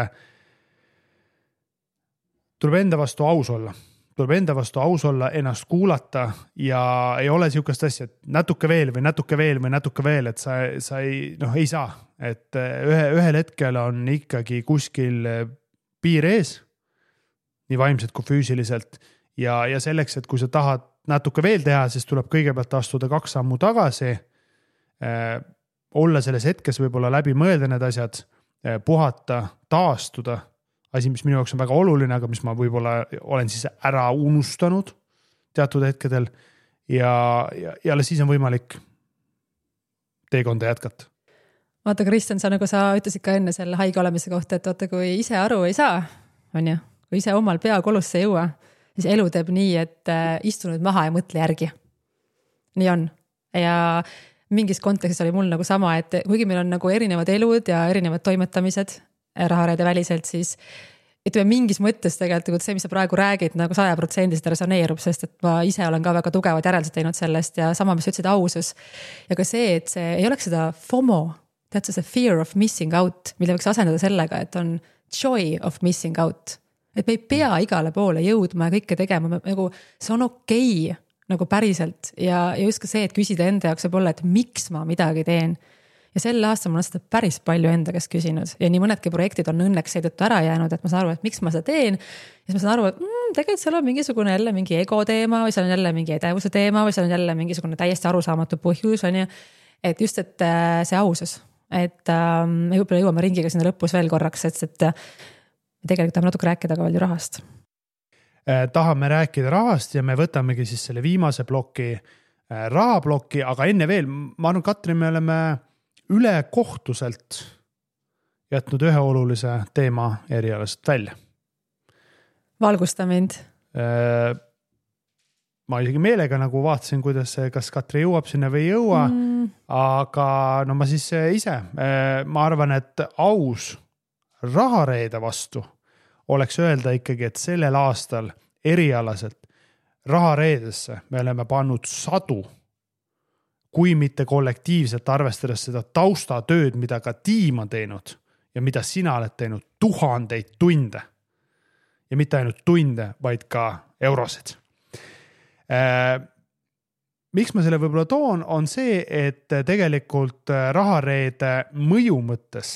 [SPEAKER 2] tuleb enda vastu aus olla. Tuleb enda vastu aus olla, ennast kuulata ja ei ole niisugust asja, et natuke veel või natuke veel või natuke veel, et sa ei saa. Et ühel hetkel on ikkagi kuskil piir ees, nii vaimselt kui füüsiliselt ja selleks, et kui sa tahad natuke veel teha, siis tuleb kõigepealt astuda 2 sammu tagasi, olla selles hetkes võib-olla läbi mõelda need asjad, puhata, taastuda, asi, mis minu jaoks on väga oluline, aga mis ma võib-olla olen siis ära unustanud teatud hetkedel ja siis on võimalik teekonda jätkata.
[SPEAKER 1] Vaata, Kristjan, nagu sa ütlesid ka enne selle haige olemise kohta, et vaata, kui ise aru ei saa, on ju, kui ise omal pea kolusse ei jõua, siis elu teeb nii, et istu nüüd maha ja mõtle järgi. Nii on. Ja mingis kontekstis oli mul nagu sama, et kuigi meil on nagu erinevad elud ja erinevad toimetamised Rahareede väliselt, siis ütleme mingis mõttes tegelikult see, mis sa praegu räägid, nagu 100% resoneerub, sest et ma ise olen ka väga tugevad järeldused teinud sellest ja sama, mis ütlesid ausus. Ja ka see, et see ei oleks seda FOMO, tead see fear of missing out, mille võiks asendada sellega, et on joy of missing out. Et me ei pea igale poole jõudma ja kõike tegema, nagu see on okei. Nagu päriselt ja just ka see, et küsida enda jaoks võib olla, et miks ma midagi teen. Ja sel aastal ma olen seda päris palju enda käest küsinud ja nii mõnedki projektid on õnneks seetõttu ära jäänud, et ma saan aru, et miks ma seda teen. Ja siis ma saan aru, et tegelikult seal on mingisugune jälle mingi ego teema või seal on jälle mingi edevuse teema või seal on jälle mingisugune täiesti arusaamatu põhjus. On ju. Et just, et see ausus, et me võib-olla jõuame ringiga sinna lõpus veel korraks, et tegelikult tahame natuke rääkida ka veel ju rahast.
[SPEAKER 2] Tahame rääkida rahast ja me võtamegi siis selle viimase ploki, rahaploki, aga enne veel, ma arvan, Katri, me oleme üle kohtuselt jätnud ühe olulise teema erialast välja.
[SPEAKER 1] Valgusta mind.
[SPEAKER 2] Ma isegi meelega nagu vaatasin, kas Katri jõuab sinna või ei jõua, aga no ma siis ise, ma arvan, et aus Rahareede vastu oleks öelda ikkagi, et sellel aastal erialaselt rahareedesse me oleme pannud sadu, kui mitte kollektiivselt arvestades seda taustatööd, mida ka tiim on teinud ja mida sina oled teinud 1000 tunde. Ja mitte ainult tunde, vaid ka eurosid. Miks ma selle võib-olla toon, on see, et tegelikult rahareede mõju mõttes,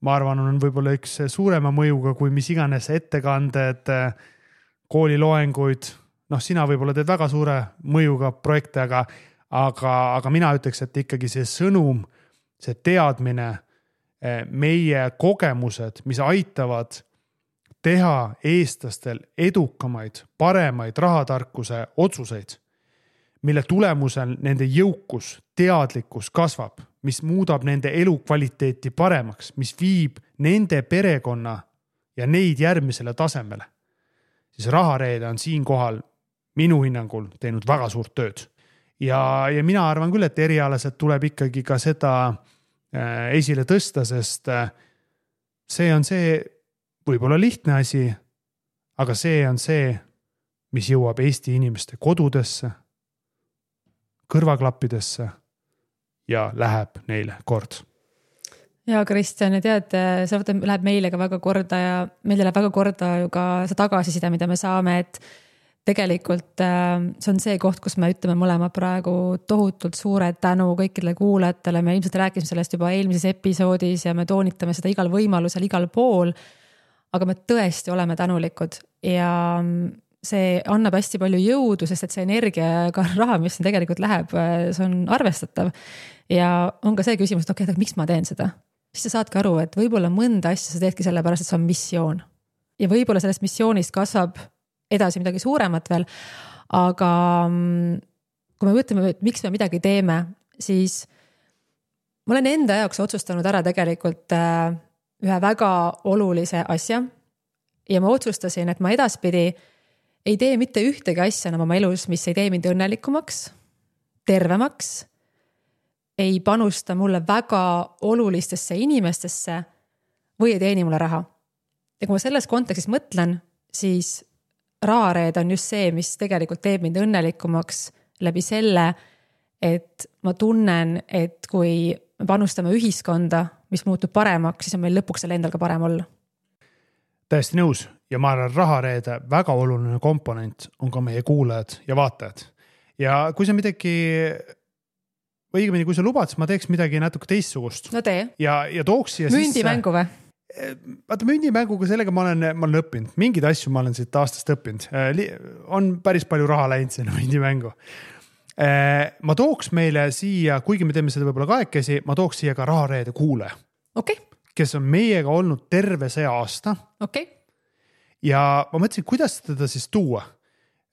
[SPEAKER 2] ma arvan, on võib-olla üks suurema mõjuga kui mis iganes ettekanded, kooliloenguid. Sina võib-olla teed väga suure mõjuga projekte, aga mina ütleks, et ikkagi see sõnum, see teadmine, meie kogemused, mis aitavad teha eestlastel edukamaid, paremaid rahatarkuse otsuseid, mille tulemusel nende jõukus, teadlikkus kasvab, mis muudab nende elukvaliteeti paremaks, mis viib nende perekonna ja neid järgmisele tasemele. Siis rahareede on siinkohal minu hinnangul teinud väga suurt tööd. Ja mina arvan küll, et erialaselt tuleb ikkagi ka seda esile tõsta, sest see on see võib-olla lihtne asi, aga see on see, mis jõuab Eesti inimeste kodudesse, kõrvaklappidesse ja läheb neile kord.
[SPEAKER 1] Ja Kristjan, ja tead, see läheb meile ka väga korda ja meile läheb väga korda ju ka see tagasiside, mida me saame, et tegelikult see on see koht, kus me ütleme mõlema praegu tohutult suure tänu kõikidele kuulajatele. Me ilmselt rääkisime sellest juba eelmises episoodis ja me toonitame seda igal võimalusel, igal pool. Aga me tõesti oleme tänulikud ja see annab hästi palju jõudu, sest et see energia ja ka raha, mis siin tegelikult läheb, see on arvestatav. Ja on ka see küsimus, et okei, miks ma teen seda? Siis sa saadki aru, et võib-olla mõnda asja sa teedki selle pärast, et see on missioon. Ja võib-olla sellest missioonist kasvab edasi midagi suuremat veel, aga kui me mõtleme, et miks me midagi teeme, siis ma olen enda jaoks otsustanud ära tegelikult ühe väga olulise asja ja ma otsustasin, et ma edaspidi ei tee mitte ühtegi asja enam oma elus, mis ei tee mind õnnelikumaks, tervemaks, ei panusta mulle väga olulistesse inimestesse või ei teeni mulle raha. Ja kui ma selles kontekstis mõtlen, siis rahareed on just see, mis tegelikult teeb mind õnnelikumaks läbi selle, et ma tunnen, et kui me panustame ühiskonda, mis muutub paremaks, siis on meil lõpuks selle endal ka parem olla.
[SPEAKER 2] Täiesti nõus ja ma arvan, rahareede väga oluline komponent on ka meie kuulajad ja vaatajad. Ja kui sa midagi, või õigemini, kui sa lubad, siis ma teeks midagi natuke teistsugust.
[SPEAKER 1] No tee.
[SPEAKER 2] Ja tooks siia
[SPEAKER 1] mündimängu või?
[SPEAKER 2] Vaata, mündimänguga sellega ma olen õppinud. Mingid asju ma olen siit aastast õppinud. On päris palju raha läinud sinna mündimängu. Ma tooks meile siia, kuigi me teeme seda võib-olla kahekesi, ma tooks siia ka rahareede kuule.
[SPEAKER 1] Okay.
[SPEAKER 2] Kes on meiega olnud terve see aasta.
[SPEAKER 1] Okay.
[SPEAKER 2] Ja ma mõtlesin, kuidas teda siis tuua.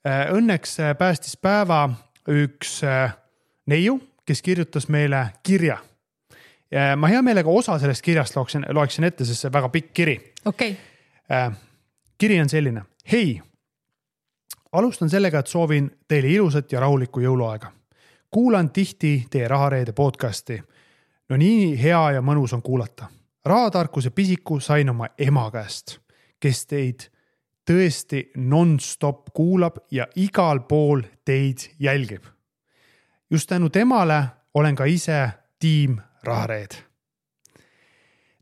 [SPEAKER 2] Õnneks päästis päeva üks neiu, kes kirjutas meile kirja. Ja ma hea meelega osa sellest kirjast loeksin ette, sest see väga pikk kiri.
[SPEAKER 1] Okay.
[SPEAKER 2] Kiri on selline. Hei, alustan sellega, et soovin teile ilusat ja rahulikku jõuluaega. Kuulan tihti teie rahareede podcasti. No nii hea ja mõnus on kuulata. Rahatarkuse pisiku sain oma ema käest, kes teid tõesti non-stop kuulab ja igal pool teid jälgib. Just tänu temale olen ka ise tiim rahareed.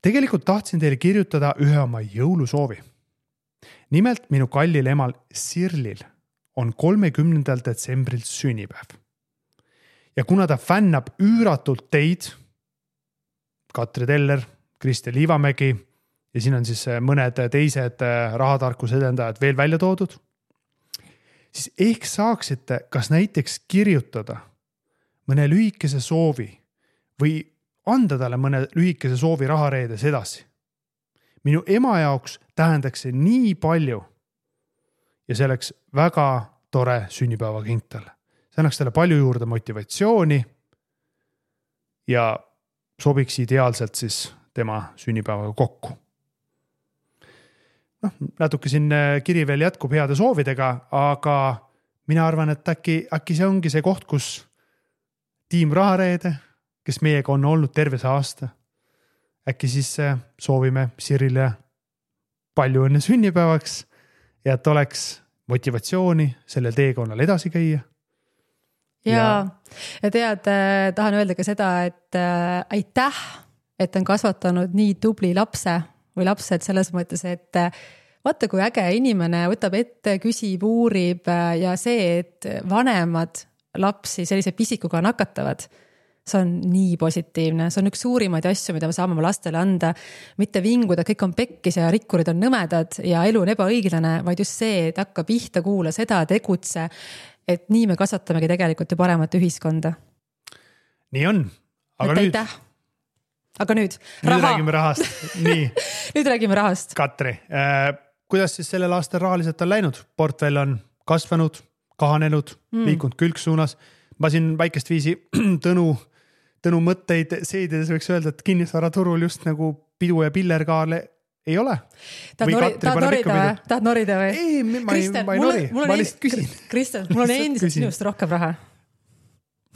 [SPEAKER 2] Tegelikult tahtsin teile kirjutada ühe oma jõulusoovi. Nimelt minu kallil emal Sirlil on 30. detsembril sünnipäev. Ja kuna ta fännab üüratult teid, Katri Teller, Kristel Liivamägi ja siin on siis mõned teised rahatarkuse edendajad veel välja toodud, siis ehk saaksite kas näiteks kirjutada mõne lühikese soovi või anda talle mõne lühikese soovi rahareedes edasi. Minu ema jaoks tähendaks see nii palju ja see oleks väga tore sünnipäeva kink talle. See annaks talle palju juurde motivatsiooni ja sobiks ideaalselt siis tema sünnipäevaga kokku. Natuke siin kiri veel jätkub heade soovidega, aga mina arvan, et äkki see ongi see koht, kus tiim rahareede, kes meiega on olnud terve see aasta. Äkki siis soovime Sirile palju õnne sünnipäevaks ja et oleks motivatsiooni sellel teekonnal edasi käia.
[SPEAKER 1] ja tead, tahan öelda ka seda, et aitäh, et on kasvatanud nii tubli lapse või lapsed selles mõttes, et vaata, kui äge inimene võtab ette, küsib, uurib ja see, et vanemad lapsi sellise pisikuga nakatavad, see on nii positiivne, see on üks suurimaid asju, mida me saame oma lastele anda, mitte vinguda, kõik on pekkis ja rikkurid on nõmedad ja elu on ebaõiglane, vaid just see, et hakka pihta, kuula seda, tegutse, et nii me kasvatamegi tegelikult ju paremat ühiskonda.
[SPEAKER 2] Nii on, aga nüüd...
[SPEAKER 1] Aga nüüd
[SPEAKER 2] räägime rahast. Nii.
[SPEAKER 1] Nüüd räägime rahast.
[SPEAKER 2] Katri, kuidas siis sellel aastal rahaliselt on läinud? Portfell on kasvanud, kahanenud, liikunud külgsuunas. Ma siin väikest viisi Tõnu mõtteid seedides võiks öelda, et kinnisvaraturul just nagu pidu ja pillerkaale ei ole.
[SPEAKER 1] Tahad norida või?
[SPEAKER 2] Ei, ma ei nori, ma lihtsalt küsin.
[SPEAKER 1] Kristel, mul on endiselt sinust rohkem raha.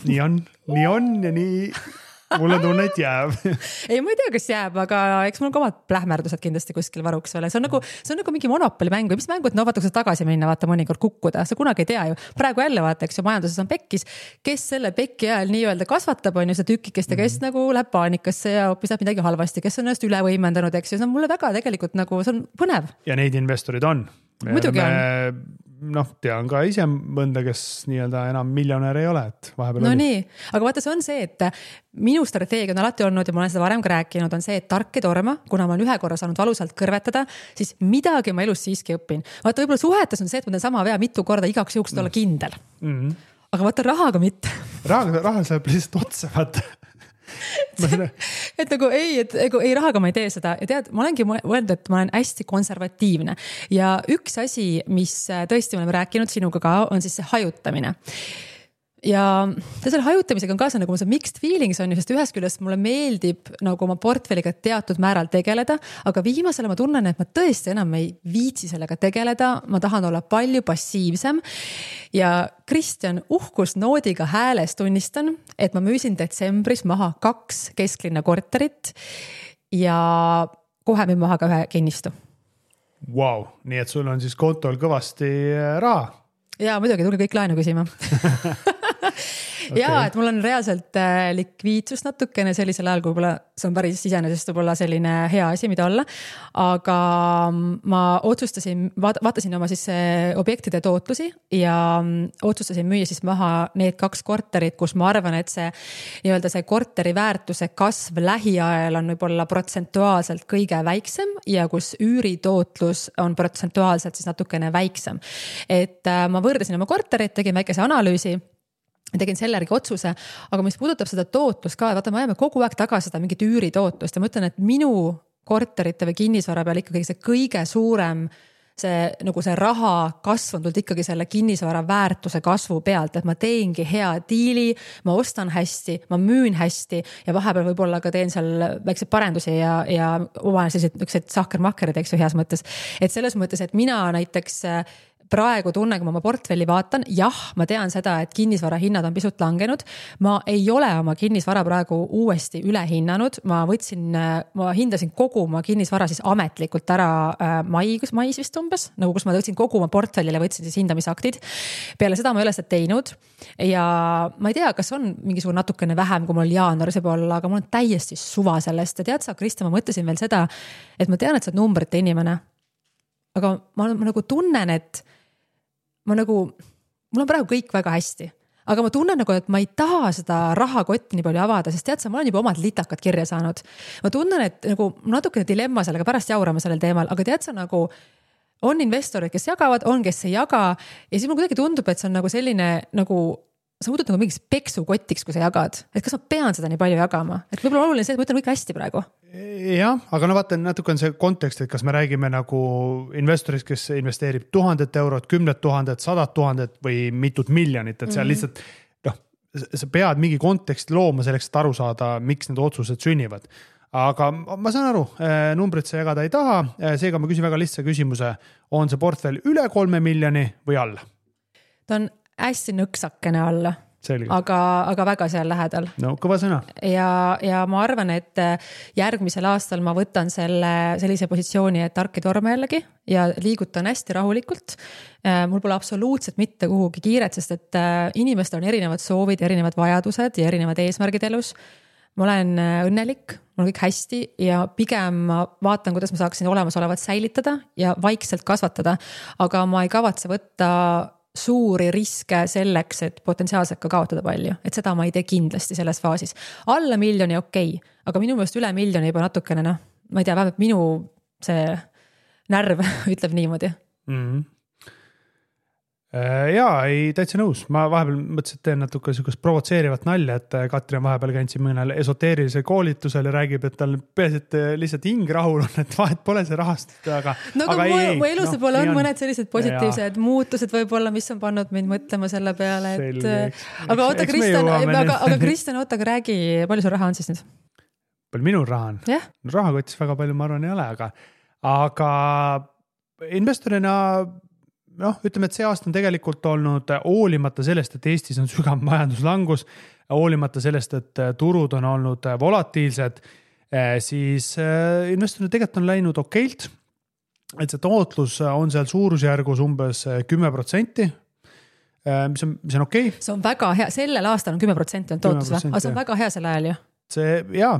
[SPEAKER 2] Nii on ja nii mul on tunne, et jääb.
[SPEAKER 1] Ei, ma ei tea, kas jääb, aga eks mul on ka omad plähmerdused kindlasti kuskil varuks veel. See on nagu mingi monopoli mäng või mis mängu, et no vaata, kui sa tagasi minna, vaata mõnikord kukkuda. Sa kunagi ei tea ju. Praegu jälle vaata, eks ju, majanduses on pekkis. Kes selle pekki ajal nii-öelda kasvatab, on ju see tükikest ja kes nagu läheb paanikasse ja hoopis läheb midagi halvasti, kes on ennast üle võimendanud, eks ju. See on mulle väga tegelikult nagu, see on põnev.
[SPEAKER 2] Ja neid investorid on.
[SPEAKER 1] Muidugi on.
[SPEAKER 2] Tean ka ise mõnda, kes nii-öelda enam miljonär ei ole, et vahepeal
[SPEAKER 1] no
[SPEAKER 2] oli.
[SPEAKER 1] Nii, aga vaata, see on see, et minu strateegia on alati olnud ja ma olen seda varem ka rääkinud, on see, et tark ei torma, kuna ma olen ühe korra saanud valusalt kõrvetada, siis midagi ma elus siiski õpin. Vaata, võib-olla suhetes on see, et ma teen sama vea mitu korda igaks juhuks olla kindel. Aga vaata, rahaga mitte.
[SPEAKER 2] Raha saab lihtsalt otsa, vaata.
[SPEAKER 1] et nagu ei rahaga ma ei tee seda ja tead, ma olengi mõelnud, et ma olen hästi konservatiivne ja üks asi, mis tõesti me oleme rääkinud sinuga ka, on siis see hajutamine. Ja selle hajutamisega on kaasa nagu see mixed feelings on ju, sest ühest küljest mulle meeldib nagu oma portfelliga teatud määral tegeleda, aga viimasele ma tunnen, et ma tõesti enam ei viitsi sellega tegeleda, ma tahan olla palju passiivsem ja Kristjan uhkusnoodiga hääles tunnistan, et ma müüsin detsembris maha 2 kesklinna korterit ja kohe müün maha ka 1 kinnistu.
[SPEAKER 2] Wow, nii et sul on siis kontol kõvasti raha?
[SPEAKER 1] Ja muidugi tulge kõik laenu küsima. Ja, et mul on reaalselt likviidsus natukene sellisel ajal, kui võib-olla see on päris iseenesest võib-olla selline hea asi, mida olla. Aga ma otsustasin, vaatasin oma siis objektide tootlusi ja otsustasin müüa siis maha need 2 korterit, kus ma arvan, et see nii-öelda see korteri väärtuse kasv lähiajal on võib-olla protsentuaalselt kõige väiksem ja kus üüritootlus on protsentuaalselt siis natukene väiksem. Et ma võrdasin oma korterit, tegin väikese analüüsi, tegin selle järgi otsuse, aga mis puudutab seda tootlust ka, vaata, me ajame kogu aeg tagasi seda mingit üüritootlust ja ma ütlen, et minu korterite või kinnisvara peal ikkagi see kõige suurem see raha kasv on tulnud ikkagi selle kinnisvara väärtuse kasvu pealt, et ma teengi hea diili, ma ostan hästi, ma müün hästi ja vahepeal võib-olla ka teen seal väikseid parendusi ja oma sellised sahkermakkerid, eks ju, heas mõttes. Et selles mõttes, et mina näiteks praegu tunnen, kui ma oma portfelli vaatan, jah, ma tean seda, et kinnisvara hinnad on pisut langenud. Ma ei ole oma kinnisvara praegu uuesti üle hinnanud. Ma hindasin kogu oma kinnisvara siis ametlikult ära mais vist umbes, nagu kus ma võtsin kogu oma portfellile, võtsin siis hindamisaktid. Peale seda ma ei ole seda teinud ja ma ei tea, kas on mingisugune natukene vähem, kui mul jaanuaris võib olla, aga mul on täiesti suva sellest ja tead sa, Krista, ma mõtlesin veel seda, et ma tean, et sa oled numbrite inimene, aga ma nagu tunnen, et mul on praegu kõik väga hästi, aga ma tunnen nagu, et ma ei taha seda rahakotti nii palju avada, sest tead sa, ma olen juba omad litakad kirja saanud. Ma tunnen, et nagu natukene dilemma sellega, pärast jaurama sellel teemal, aga tead sa nagu on investorid, kes jagavad, on, kes ei jaga ja siis mul kuidagi tundub, et see on nagu selline nagu sa muudud nagu mingis peksukotiks, kui sa jagad, et kas ma pean seda nii palju jagama, et võib-olla oluline see, et ma ütlen kõik hästi praegu.
[SPEAKER 2] Jah, aga vaata, natuke on see kontekst, et kas me räägime nagu investorist, kes investeerib 1000 eurot, 10 000, 100 000 või mitut miljonit, et seal lihtsalt sa pead mingi konteksti looma selleks, et aru saada, miks need otsused sünnivad. Aga ma saan aru, numbrit sa jagada ei taha, seega ma küsin väga lihtsa küsimuse, on see portfell üle 3 miljoni või alla?
[SPEAKER 1] Ta on hästi nõksakene alla. aga väga seal lähedal.
[SPEAKER 2] No kõva sõna.
[SPEAKER 1] Ja ma arvan, et järgmisel aastal ma võtan sellise positsiooni, et tark ei torma jällegi ja liigutan hästi rahulikult. Mul pole absoluutselt mitte kuhugi kiiret, sest et inimestel on erinevad soovid, erinevad vajadused ja erinevad eesmärgid elus. Ma olen õnnelik, mul on kõik hästi ja pigem ma vaatan, kuidas ma saaksin olemasolevat säilitada ja vaikselt kasvatada, aga ma ei kavatse võtta suuri riske selleks, et potentsiaalselt ka kaotada palju, et seda ma ei tee kindlasti selles faasis. Alla miljoni okei, aga minu meelest üle miljoni juba natukene, ma ei tea, vähemalt minu see närv ütleb niimoodi.
[SPEAKER 2] Jaa, ei täitsa nõus. Ma vahepeal mõtlesin, et teen natuke sükust provotseerivat nalja, et Katri on vahepeal käinud mõnel esoteerilisel koolitusel ja räägib, et tal peaasi, et lihtsalt hing rahul on, et vahet pole see rahast. Aga
[SPEAKER 1] mu elus võib-olla on mõned sellised positiivsed muutused võib-olla, mis on pannud mind mõtlema selle peale, et aga oota, Kristjan, oota, aga räägi, palju sul raha on siis nüüd?
[SPEAKER 2] Palju minul raha on?
[SPEAKER 1] Yeah.
[SPEAKER 2] Rahakotis väga palju ma arvan ei ole, aga investorina ütleme, et see aasta on tegelikult olnud hoolimata sellest, et Eestis on sügav majanduslangus, hoolimata sellest, et turud on olnud volatiilsed, siis investorina tegelikult on läinud okeilt, et see tootlus on seal suurusjärgus umbes 10%, mis on okei.
[SPEAKER 1] See on väga hea, sellel aastal on 10% on tootlus, aga see on väga hea sel ajal ju.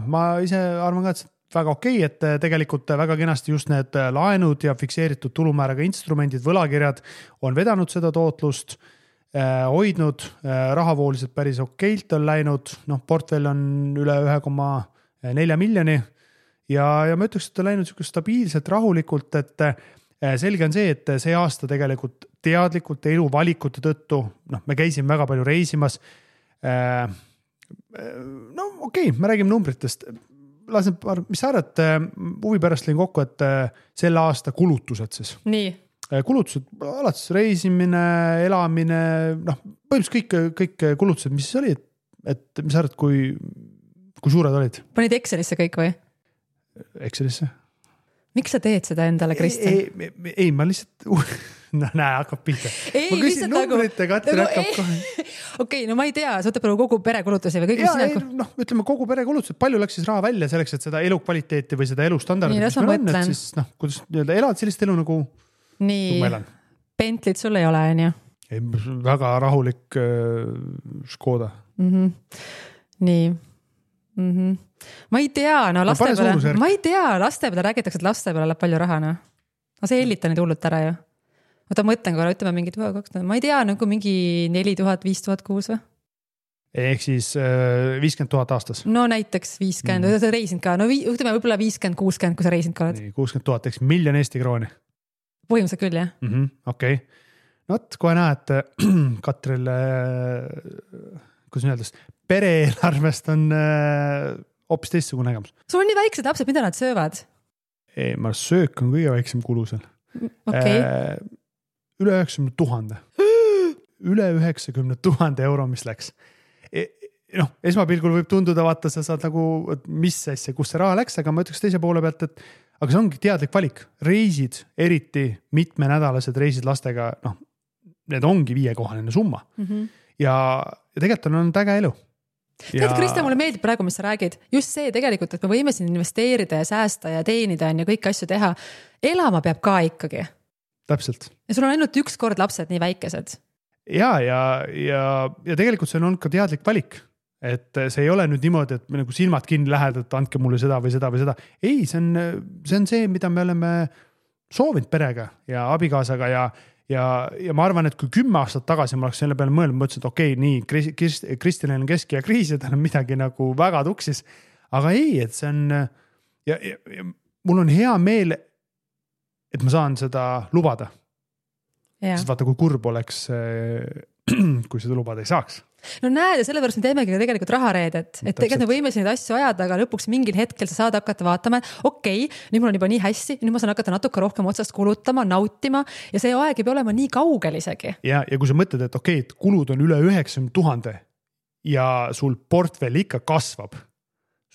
[SPEAKER 2] Ma ise arvan ka, et väga okei, et tegelikult väga kenasti just need laenud ja fikseeritud tulumääraga instrumendid, võlakirjad on vedanud seda tootlust, hoidnud, rahavooliselt päris okeilt on läinud, portfell on üle 1,4 miljoni ja ma ütleks, et on läinud stabiilselt, rahulikult, et selge on see, et see aasta tegelikult teadlikult eluvalikute tõttu, me käisime väga palju reisimas, me räägime numbritest, mis sa arvad, huvi pärast lõin kokku, et selle aasta kulutused siis.
[SPEAKER 1] Nii.
[SPEAKER 2] Kulutused, alates reisimine, elamine, põhimõtteliselt kõik kulutused, mis siis oli, et mis sa arvad, kui suured olid?
[SPEAKER 1] Panid Excelisse kõik või?
[SPEAKER 2] Excelisse.
[SPEAKER 1] Miks sa teed seda endale, Kristjan?
[SPEAKER 2] Ei, ma lihtsalt... hakkab pihta. Ma küsin numbrit ja Katri hakkab kohe.
[SPEAKER 1] Okei, ma ei tea, sa võtab kogu pere kulutusi või kõik,
[SPEAKER 2] ütleme kogu pere kulutused, palju läks siis raha välja selleks, et seda elukvaliteeti või seda elustandardit, mis meil on, et siis kuidas elad sellist elu nagu
[SPEAKER 1] nii, Bentley't sul ei ole, on ju?
[SPEAKER 2] Ei, väga rahulik Škoda.
[SPEAKER 1] Nii. Ma ei tea, laste peale räägitakse, et laste peale läheb palju raha, aga see hellita neid hullult ära ju. Oota, mõtlen korra, ütleme mingid, ma ei tea, nagu mingi 4000, 5000 kuus või?
[SPEAKER 2] Ehk siis 50 000 aastas.
[SPEAKER 1] No näiteks 50, sa reisinud ka, ütleme võib-olla 50-60, kui sa reisinud ka oled.
[SPEAKER 2] 60 000, eks miljon Eesti krooni.
[SPEAKER 1] Põhimõtteliselt küll, jah.
[SPEAKER 2] Okei. Kohe näed, Katril, kuidas öeldes, pere-eelarvest on hoopis teistsugune nägemus.
[SPEAKER 1] Sul on nii väiksed lapsed, mida nad söövad?
[SPEAKER 2] Ei, ma söök on kõige väiksem kulu seal.
[SPEAKER 1] Okay.
[SPEAKER 2] Üle 90 000. Üle 90 000 euro, mis läks. Esmapilgul võib tunduda, vaata, sa saad nagu, mis asja, kus see raha läks, aga ma ütleks teise poole pealt, et aga see ongi teadlik valik. Reisid, eriti mitmenädalased reisid lastega, need ongi 5-kohaline summa. Ja tegelikult on äge elu.
[SPEAKER 1] Tead, Kristjan, mulle meeldib praegu, mis sa räägid. Just see tegelikult, et me võime siin investeerida ja säästa ja teenida ja kõik asju teha. Elama peab ka ikkagi.
[SPEAKER 2] Täpselt.
[SPEAKER 1] Ja sul on ainult üks kord lapsed nii väikesed.
[SPEAKER 2] Ja tegelikult see on olnud ka teadlik valik. Et see ei ole nüüd niimoodi, et me nagu silmad kinni lähed, et andke mulle seda või seda või seda. Ei, see on see, mida me oleme soovinud perega ja abikaasaga ja ma arvan, et kui 10 aastat tagasi ma oleks selle peale mõelnud, ma ütlesin, et okei, nii, Kristjanil on kesk- ja kriis ja tal on midagi nagu väga tuksis. Aga ei, et see on ja mul on hea meel, et ma saan seda lubada. Sest vaata, kui kurb oleks, kui seda lubada ei saaks.
[SPEAKER 1] No näed, ja sellepärast me teemegi tegelikult rahareedet, et tegelikult me võime neid asju ajada, aga lõpuks mingil hetkel sa saad hakata vaatama, et okei, nüüd mul on juba nii hästi, nüüd ma saan hakata natuke rohkem otsast kulutama, nautima ja see aeg ei pea olema nii kaugel isegi.
[SPEAKER 2] Ja kui sa mõtled, et okei, et kulud on üle 90 000 ja sul portfell ikka kasvab,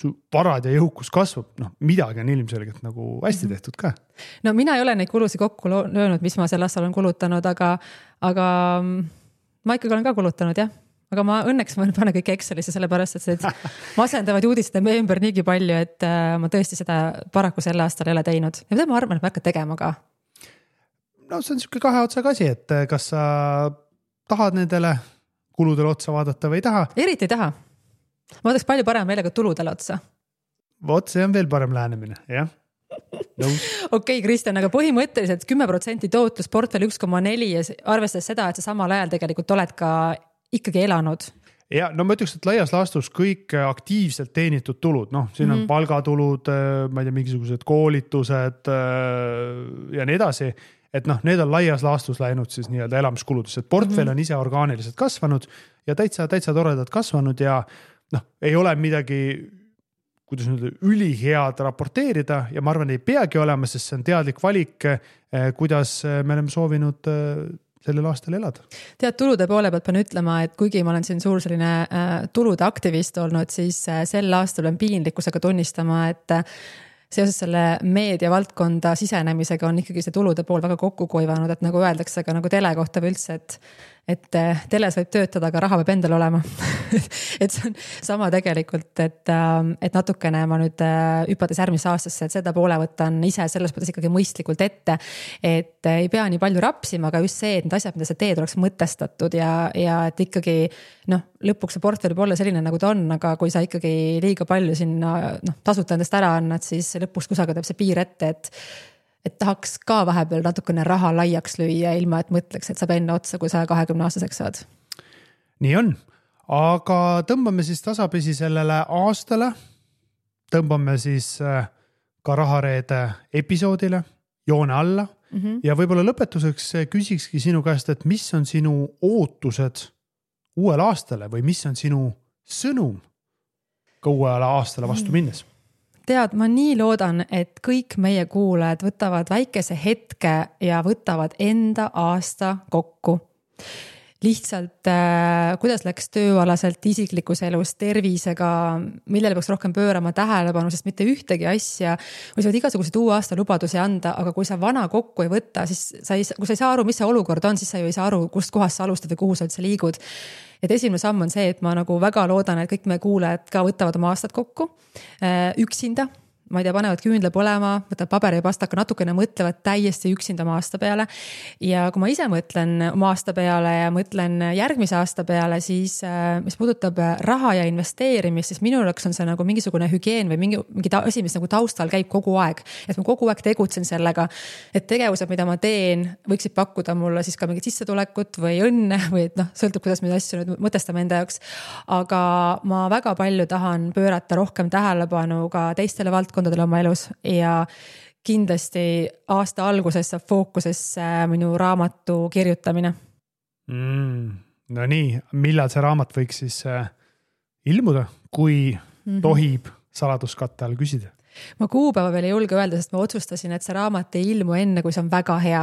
[SPEAKER 2] su varad ja jõukus kasvab, midagi on ilmselgelt nagu hästi tehtud ka.
[SPEAKER 1] No mina ei ole neid kulusid kokku löönud, mis ma sel aastal olen kulutanud, aga ma ikkagi olen ka kulutanud, jah. aga ma õnneks ma panen kõik Excelisse, sellepärast et see masendavad uudised on meie ümber niigi palju, et ma tõesti seda paraku sel aastal ei ole teinud. Ja mida ma arvan, et ma hakkan tegema ka?
[SPEAKER 2] No see on niisugune kahe otsaga asi, et kas sa tahad nendele kuludele otsa vaadata või ei taha?
[SPEAKER 1] Eriti ei taha. Ma vaataks palju parem meelega tuludele otsa.
[SPEAKER 2] Vot see on veel parem lähenemine, jah.
[SPEAKER 1] Okei, Kristjan, aga põhimõtteliselt 10% tootlus portfell 1,4 ja arvestades seda, et sa samal ajal tegelikult oled ka ikkagi elanud.
[SPEAKER 2] Ja no ma ütleks, et laias laastus kõik aktiivselt teenitud tulud, siin on palgatulud, ma ei tea, mingisugused koolitused ja nii edasi, et need on laias laastus läinud siis nii-öelda elamiskuludesse, et portfell on ise orgaaniliselt kasvanud ja täitsa toredad kasvanud ja ei ole midagi kuidas nüüd ülihead raporteerida ja ma arvan, ei peagi olema, sest see on teadlik valik, kuidas me oleme soovinud sellel aastal elada.
[SPEAKER 1] Tead, tulude poole pealt pean ütlema, et kuigi ma olen siin suur selline tulude aktivist olnud, siis sel aastal on piinlikkusega tunnistama, et seoses selle meedia valdkonda sisenemisega on ikkagi see tulude pool väga kokku kuivanud, et nagu öeldakse ka nagu tele kohta üldse, et teles võib töötada, aga raha peab endal olema. Et see on sama tegelikult, et natukene ma nüüd hüpades järgmisse aastasse, et seda poole võtan ise selles mõttes ikkagi mõistlikult ette, et ei pea nii palju rapsima, aga just see, et need asjad, mida sa teed, oleks mõtestatud ja et ikkagi lõpuks see portfell võib olla selline, nagu ta on, aga kui sa ikkagi liiga palju sinna tasuta endast ära annad, siis lõpuks kusagil teeb see piir ette, et tahaks ka vahepeal natukene raha laiaks lüüa, ilma et mõtleks, et saab enne otsa, kui sa 20-aastaseks saad.
[SPEAKER 2] Nii on, aga tõmbame siis tasapisi sellele aastale, tõmbame siis ka Rahareede episoodile joone alla ja võib-olla lõpetuseks küsikski sinu käest, et mis on sinu ootused uuele aastale või mis on sinu sõnum ka uuele aastale vastu minnes?
[SPEAKER 1] Tead, ma nii loodan, et kõik meie kuulajad võtavad väikese hetke ja võtavad enda aasta kokku. Lihtsalt, kuidas läks tööalaselt, isiklikus elus, tervisega, millele peaks rohkem pöörama tähelepanu, sest mitte ühtegi asja, või sa võid igasugused uue aasta lubadusi anda, aga kui sa vana kokku ei võtta, siis kui sa ei saa aru, mis see olukord on, siis sa ju ei saa aru, kust kohast sa alustad või kuhu sa üldse liigud. Et esimene samm on see, et ma nagu väga loodan, et kõik meie kuulajad ka võtavad oma aastat kokku üksinda. Ma ei tea, panevad küünle põlema, võtavad paberi ja pastaka, natukene mõtlevad täiesti üksinda oma aasta peale. Ja kui ma ise mõtlen oma aasta peale ja mõtlen järgmise aasta peale, siis mis puudutab raha ja investeerimist, siis minu jaoks on see nagu mingisugune hügieen või mingi asi, mis nagu taustal käib kogu aeg. Et ma kogu aeg tegutsen sellega, et tegevused, mida ma teen, võiksid pakkuda mulle siis ka mingit sissetulekut või õnne või sõltub, kuidas me asju nüüd mõtestame enda jaoks. Aga ma väga palju tahan pöörata rohkem tähelepanu ka teistele valdkondadele oma elus ja kindlasti aasta alguses saab fookusesse minu raamatu kirjutamine.
[SPEAKER 2] No nii, millal see raamat võiks siis ilmuda, kui tohib saladuskatte all küsida?
[SPEAKER 1] Ma kuupäeva veel ei julge öelda, sest ma otsustasin, et see raamat ei ilmu enne, kui see on väga hea.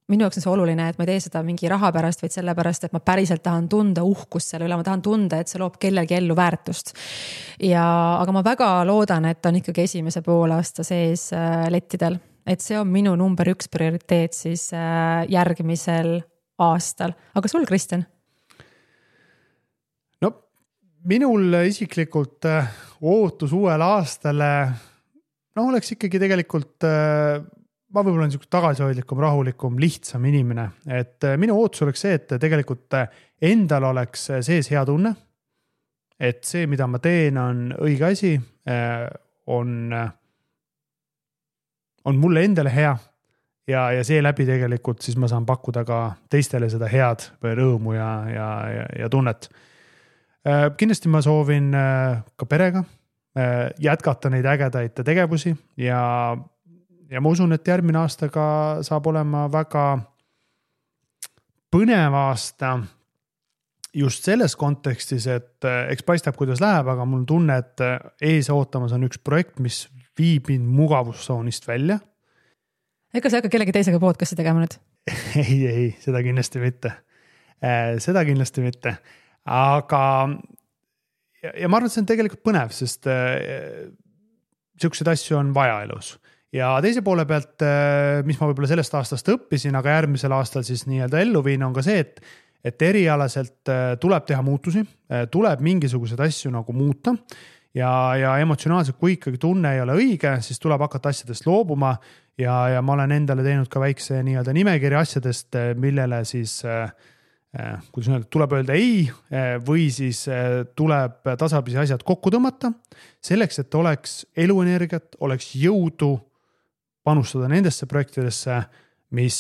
[SPEAKER 1] Minu jaoks on see oluline, et ma ei tee seda mingi raha pärast, vaid selle pärast, et ma päriselt tahan tunda uhkust selle üle, ma tahan tunda, et see loob kellelgi ellu väärtust. Aga ma väga loodan, et on ikkagi esimese poolaasta sees lettidel, et see on minu number 1 prioriteet siis järgmisel aastal. Aga sul, Kristjan?
[SPEAKER 2] No, minul isiklikult ootus uuele aastale oleks ikkagi tegelikult ma võib-olla olen niisugune tagasihoidlikum, rahulikum, lihtsam inimene, et minu ootus oleks see, et tegelikult endal oleks sees hea tunne, et see, mida ma teen, on õige asi, on mulle endale hea ja seeläbi tegelikult siis ma saan pakkuda ka teistele seda head või rõõmu ja tunnet. Kindlasti ma soovin ka perega jätkata neid ägedaid tegevusi ja ma usun, et järgmine aasta ka saab olema väga põnev aasta just selles kontekstis, et eks paistab, kuidas läheb, aga mul on tunne, et ees ootamas on üks projekt, mis viib mind mugavustsoonist välja.
[SPEAKER 1] Ega sa hakka kellegi teisega podcasti tegema nüüd?
[SPEAKER 2] Ei, seda kindlasti mitte. Aga ja ma arvan, et see on tegelikult põnev, sest selliseid asju on vaja elus. Ja teise poole pealt, mis ma võib-olla sellest aastast õppisin, aga järgmisel aastal siis nii-öelda ellu viin, on ka see, et erialaselt tuleb teha muutusi, tuleb mingisuguseid asju nagu muuta ja emotsionaalselt, kui ikkagi tunne ei ole õige, siis tuleb hakata asjadest loobuma ja ma olen endale teinud ka väikse nii-öelda nimekirja asjadest, millele siis kuidas öelda, tuleb öelda ei või siis tuleb tasapisi asjad kokku tõmmata selleks, et oleks eluenergiat, oleks jõudu panustada nendesse projektidesse, mis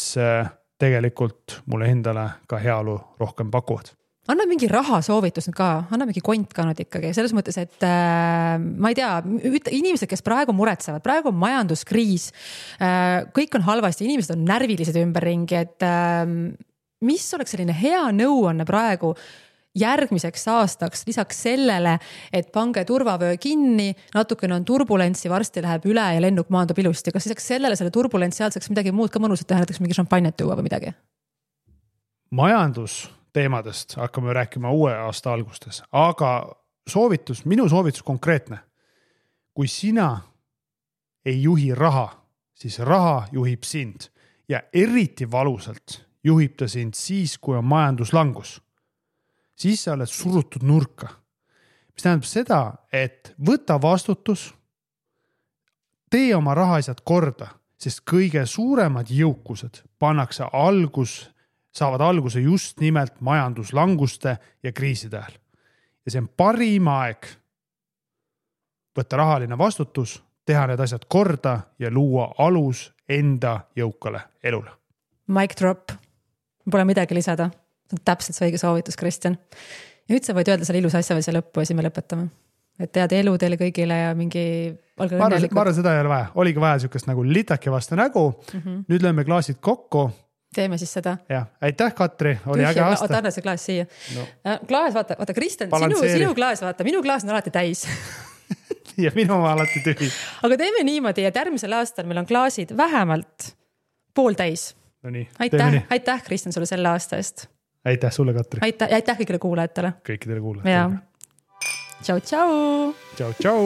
[SPEAKER 2] tegelikult mulle endale ka heaolu rohkem pakuvad.
[SPEAKER 1] Anna mingi rahasoovitus ka, anna mingi kont ka nüüd ikkagi, selles mõttes, et ma ei tea, inimesed, kes praegu muretsevad, praegu on majanduskriis, kõik on halvasti, inimesed on närvilised ümberringi, et mis oleks selline hea nõuanne praegu järgmiseks aastaks, lisaks sellele, et pange turvavöö kinni, natukene on turbulentsi, varsti läheb üle ja lennuk maandub ilusti. Kas lisaks selle turbulentsi ajal saaks midagi muud ka mõnusat teha, näiteks mingi šampanjat tuua või midagi?
[SPEAKER 2] Majandusteemadest hakkame rääkima uue aasta algustes, aga minu soovitus konkreetne. Kui sina ei juhi raha, siis raha juhib sind ja eriti valusalt juhib ta sind siis, kui on majanduslangus. Siis sa oled surutud nurka. Mis tähendab seda, et võta vastutus, tee oma rahaasjad korda, sest kõige suuremad jõukused saavad alguse just nimelt majanduslanguste ja kriiside ajal. Ja see on parim aeg võtta rahaline vastutus, teha need asjad korda ja luua alus enda jõukale elule.
[SPEAKER 1] Mic drop. Pole midagi lisada. See on täpselt see õige soovitus, Kristjan. Ja nüüd sa võid öelda selle ilus asja või see lõppu ja siis me lõpetame. Et tead elu teile kõigile ja mingi...
[SPEAKER 2] Ma arvan, seda ei ole vaja. Oligi vaja sükest nagu litake vastu nägu. Nüüd lööme klaasid kokku.
[SPEAKER 1] Teeme siis seda.
[SPEAKER 2] Ja, aitäh, Katri. Oli äge aasta.
[SPEAKER 1] Oota, anna see klaas siia. No. Klaas, vaata, Kristjan, sinu klaas, vaata, minu klaas on alati täis.
[SPEAKER 2] Ja minu oma alati tühi.
[SPEAKER 1] Aga teeme niimoodi, et järgmisel aastal meil on klaasid vähemalt pooltäis.
[SPEAKER 2] No nii,
[SPEAKER 1] aitäh, Kristjan, sulle selle aasta eest.
[SPEAKER 2] Aitäh sulle, Katri.
[SPEAKER 1] Aitäh kõigile kuulajatele.
[SPEAKER 2] Kõikidele kuulajatele.
[SPEAKER 1] Tšau, tšau.
[SPEAKER 2] Tšau, tšau.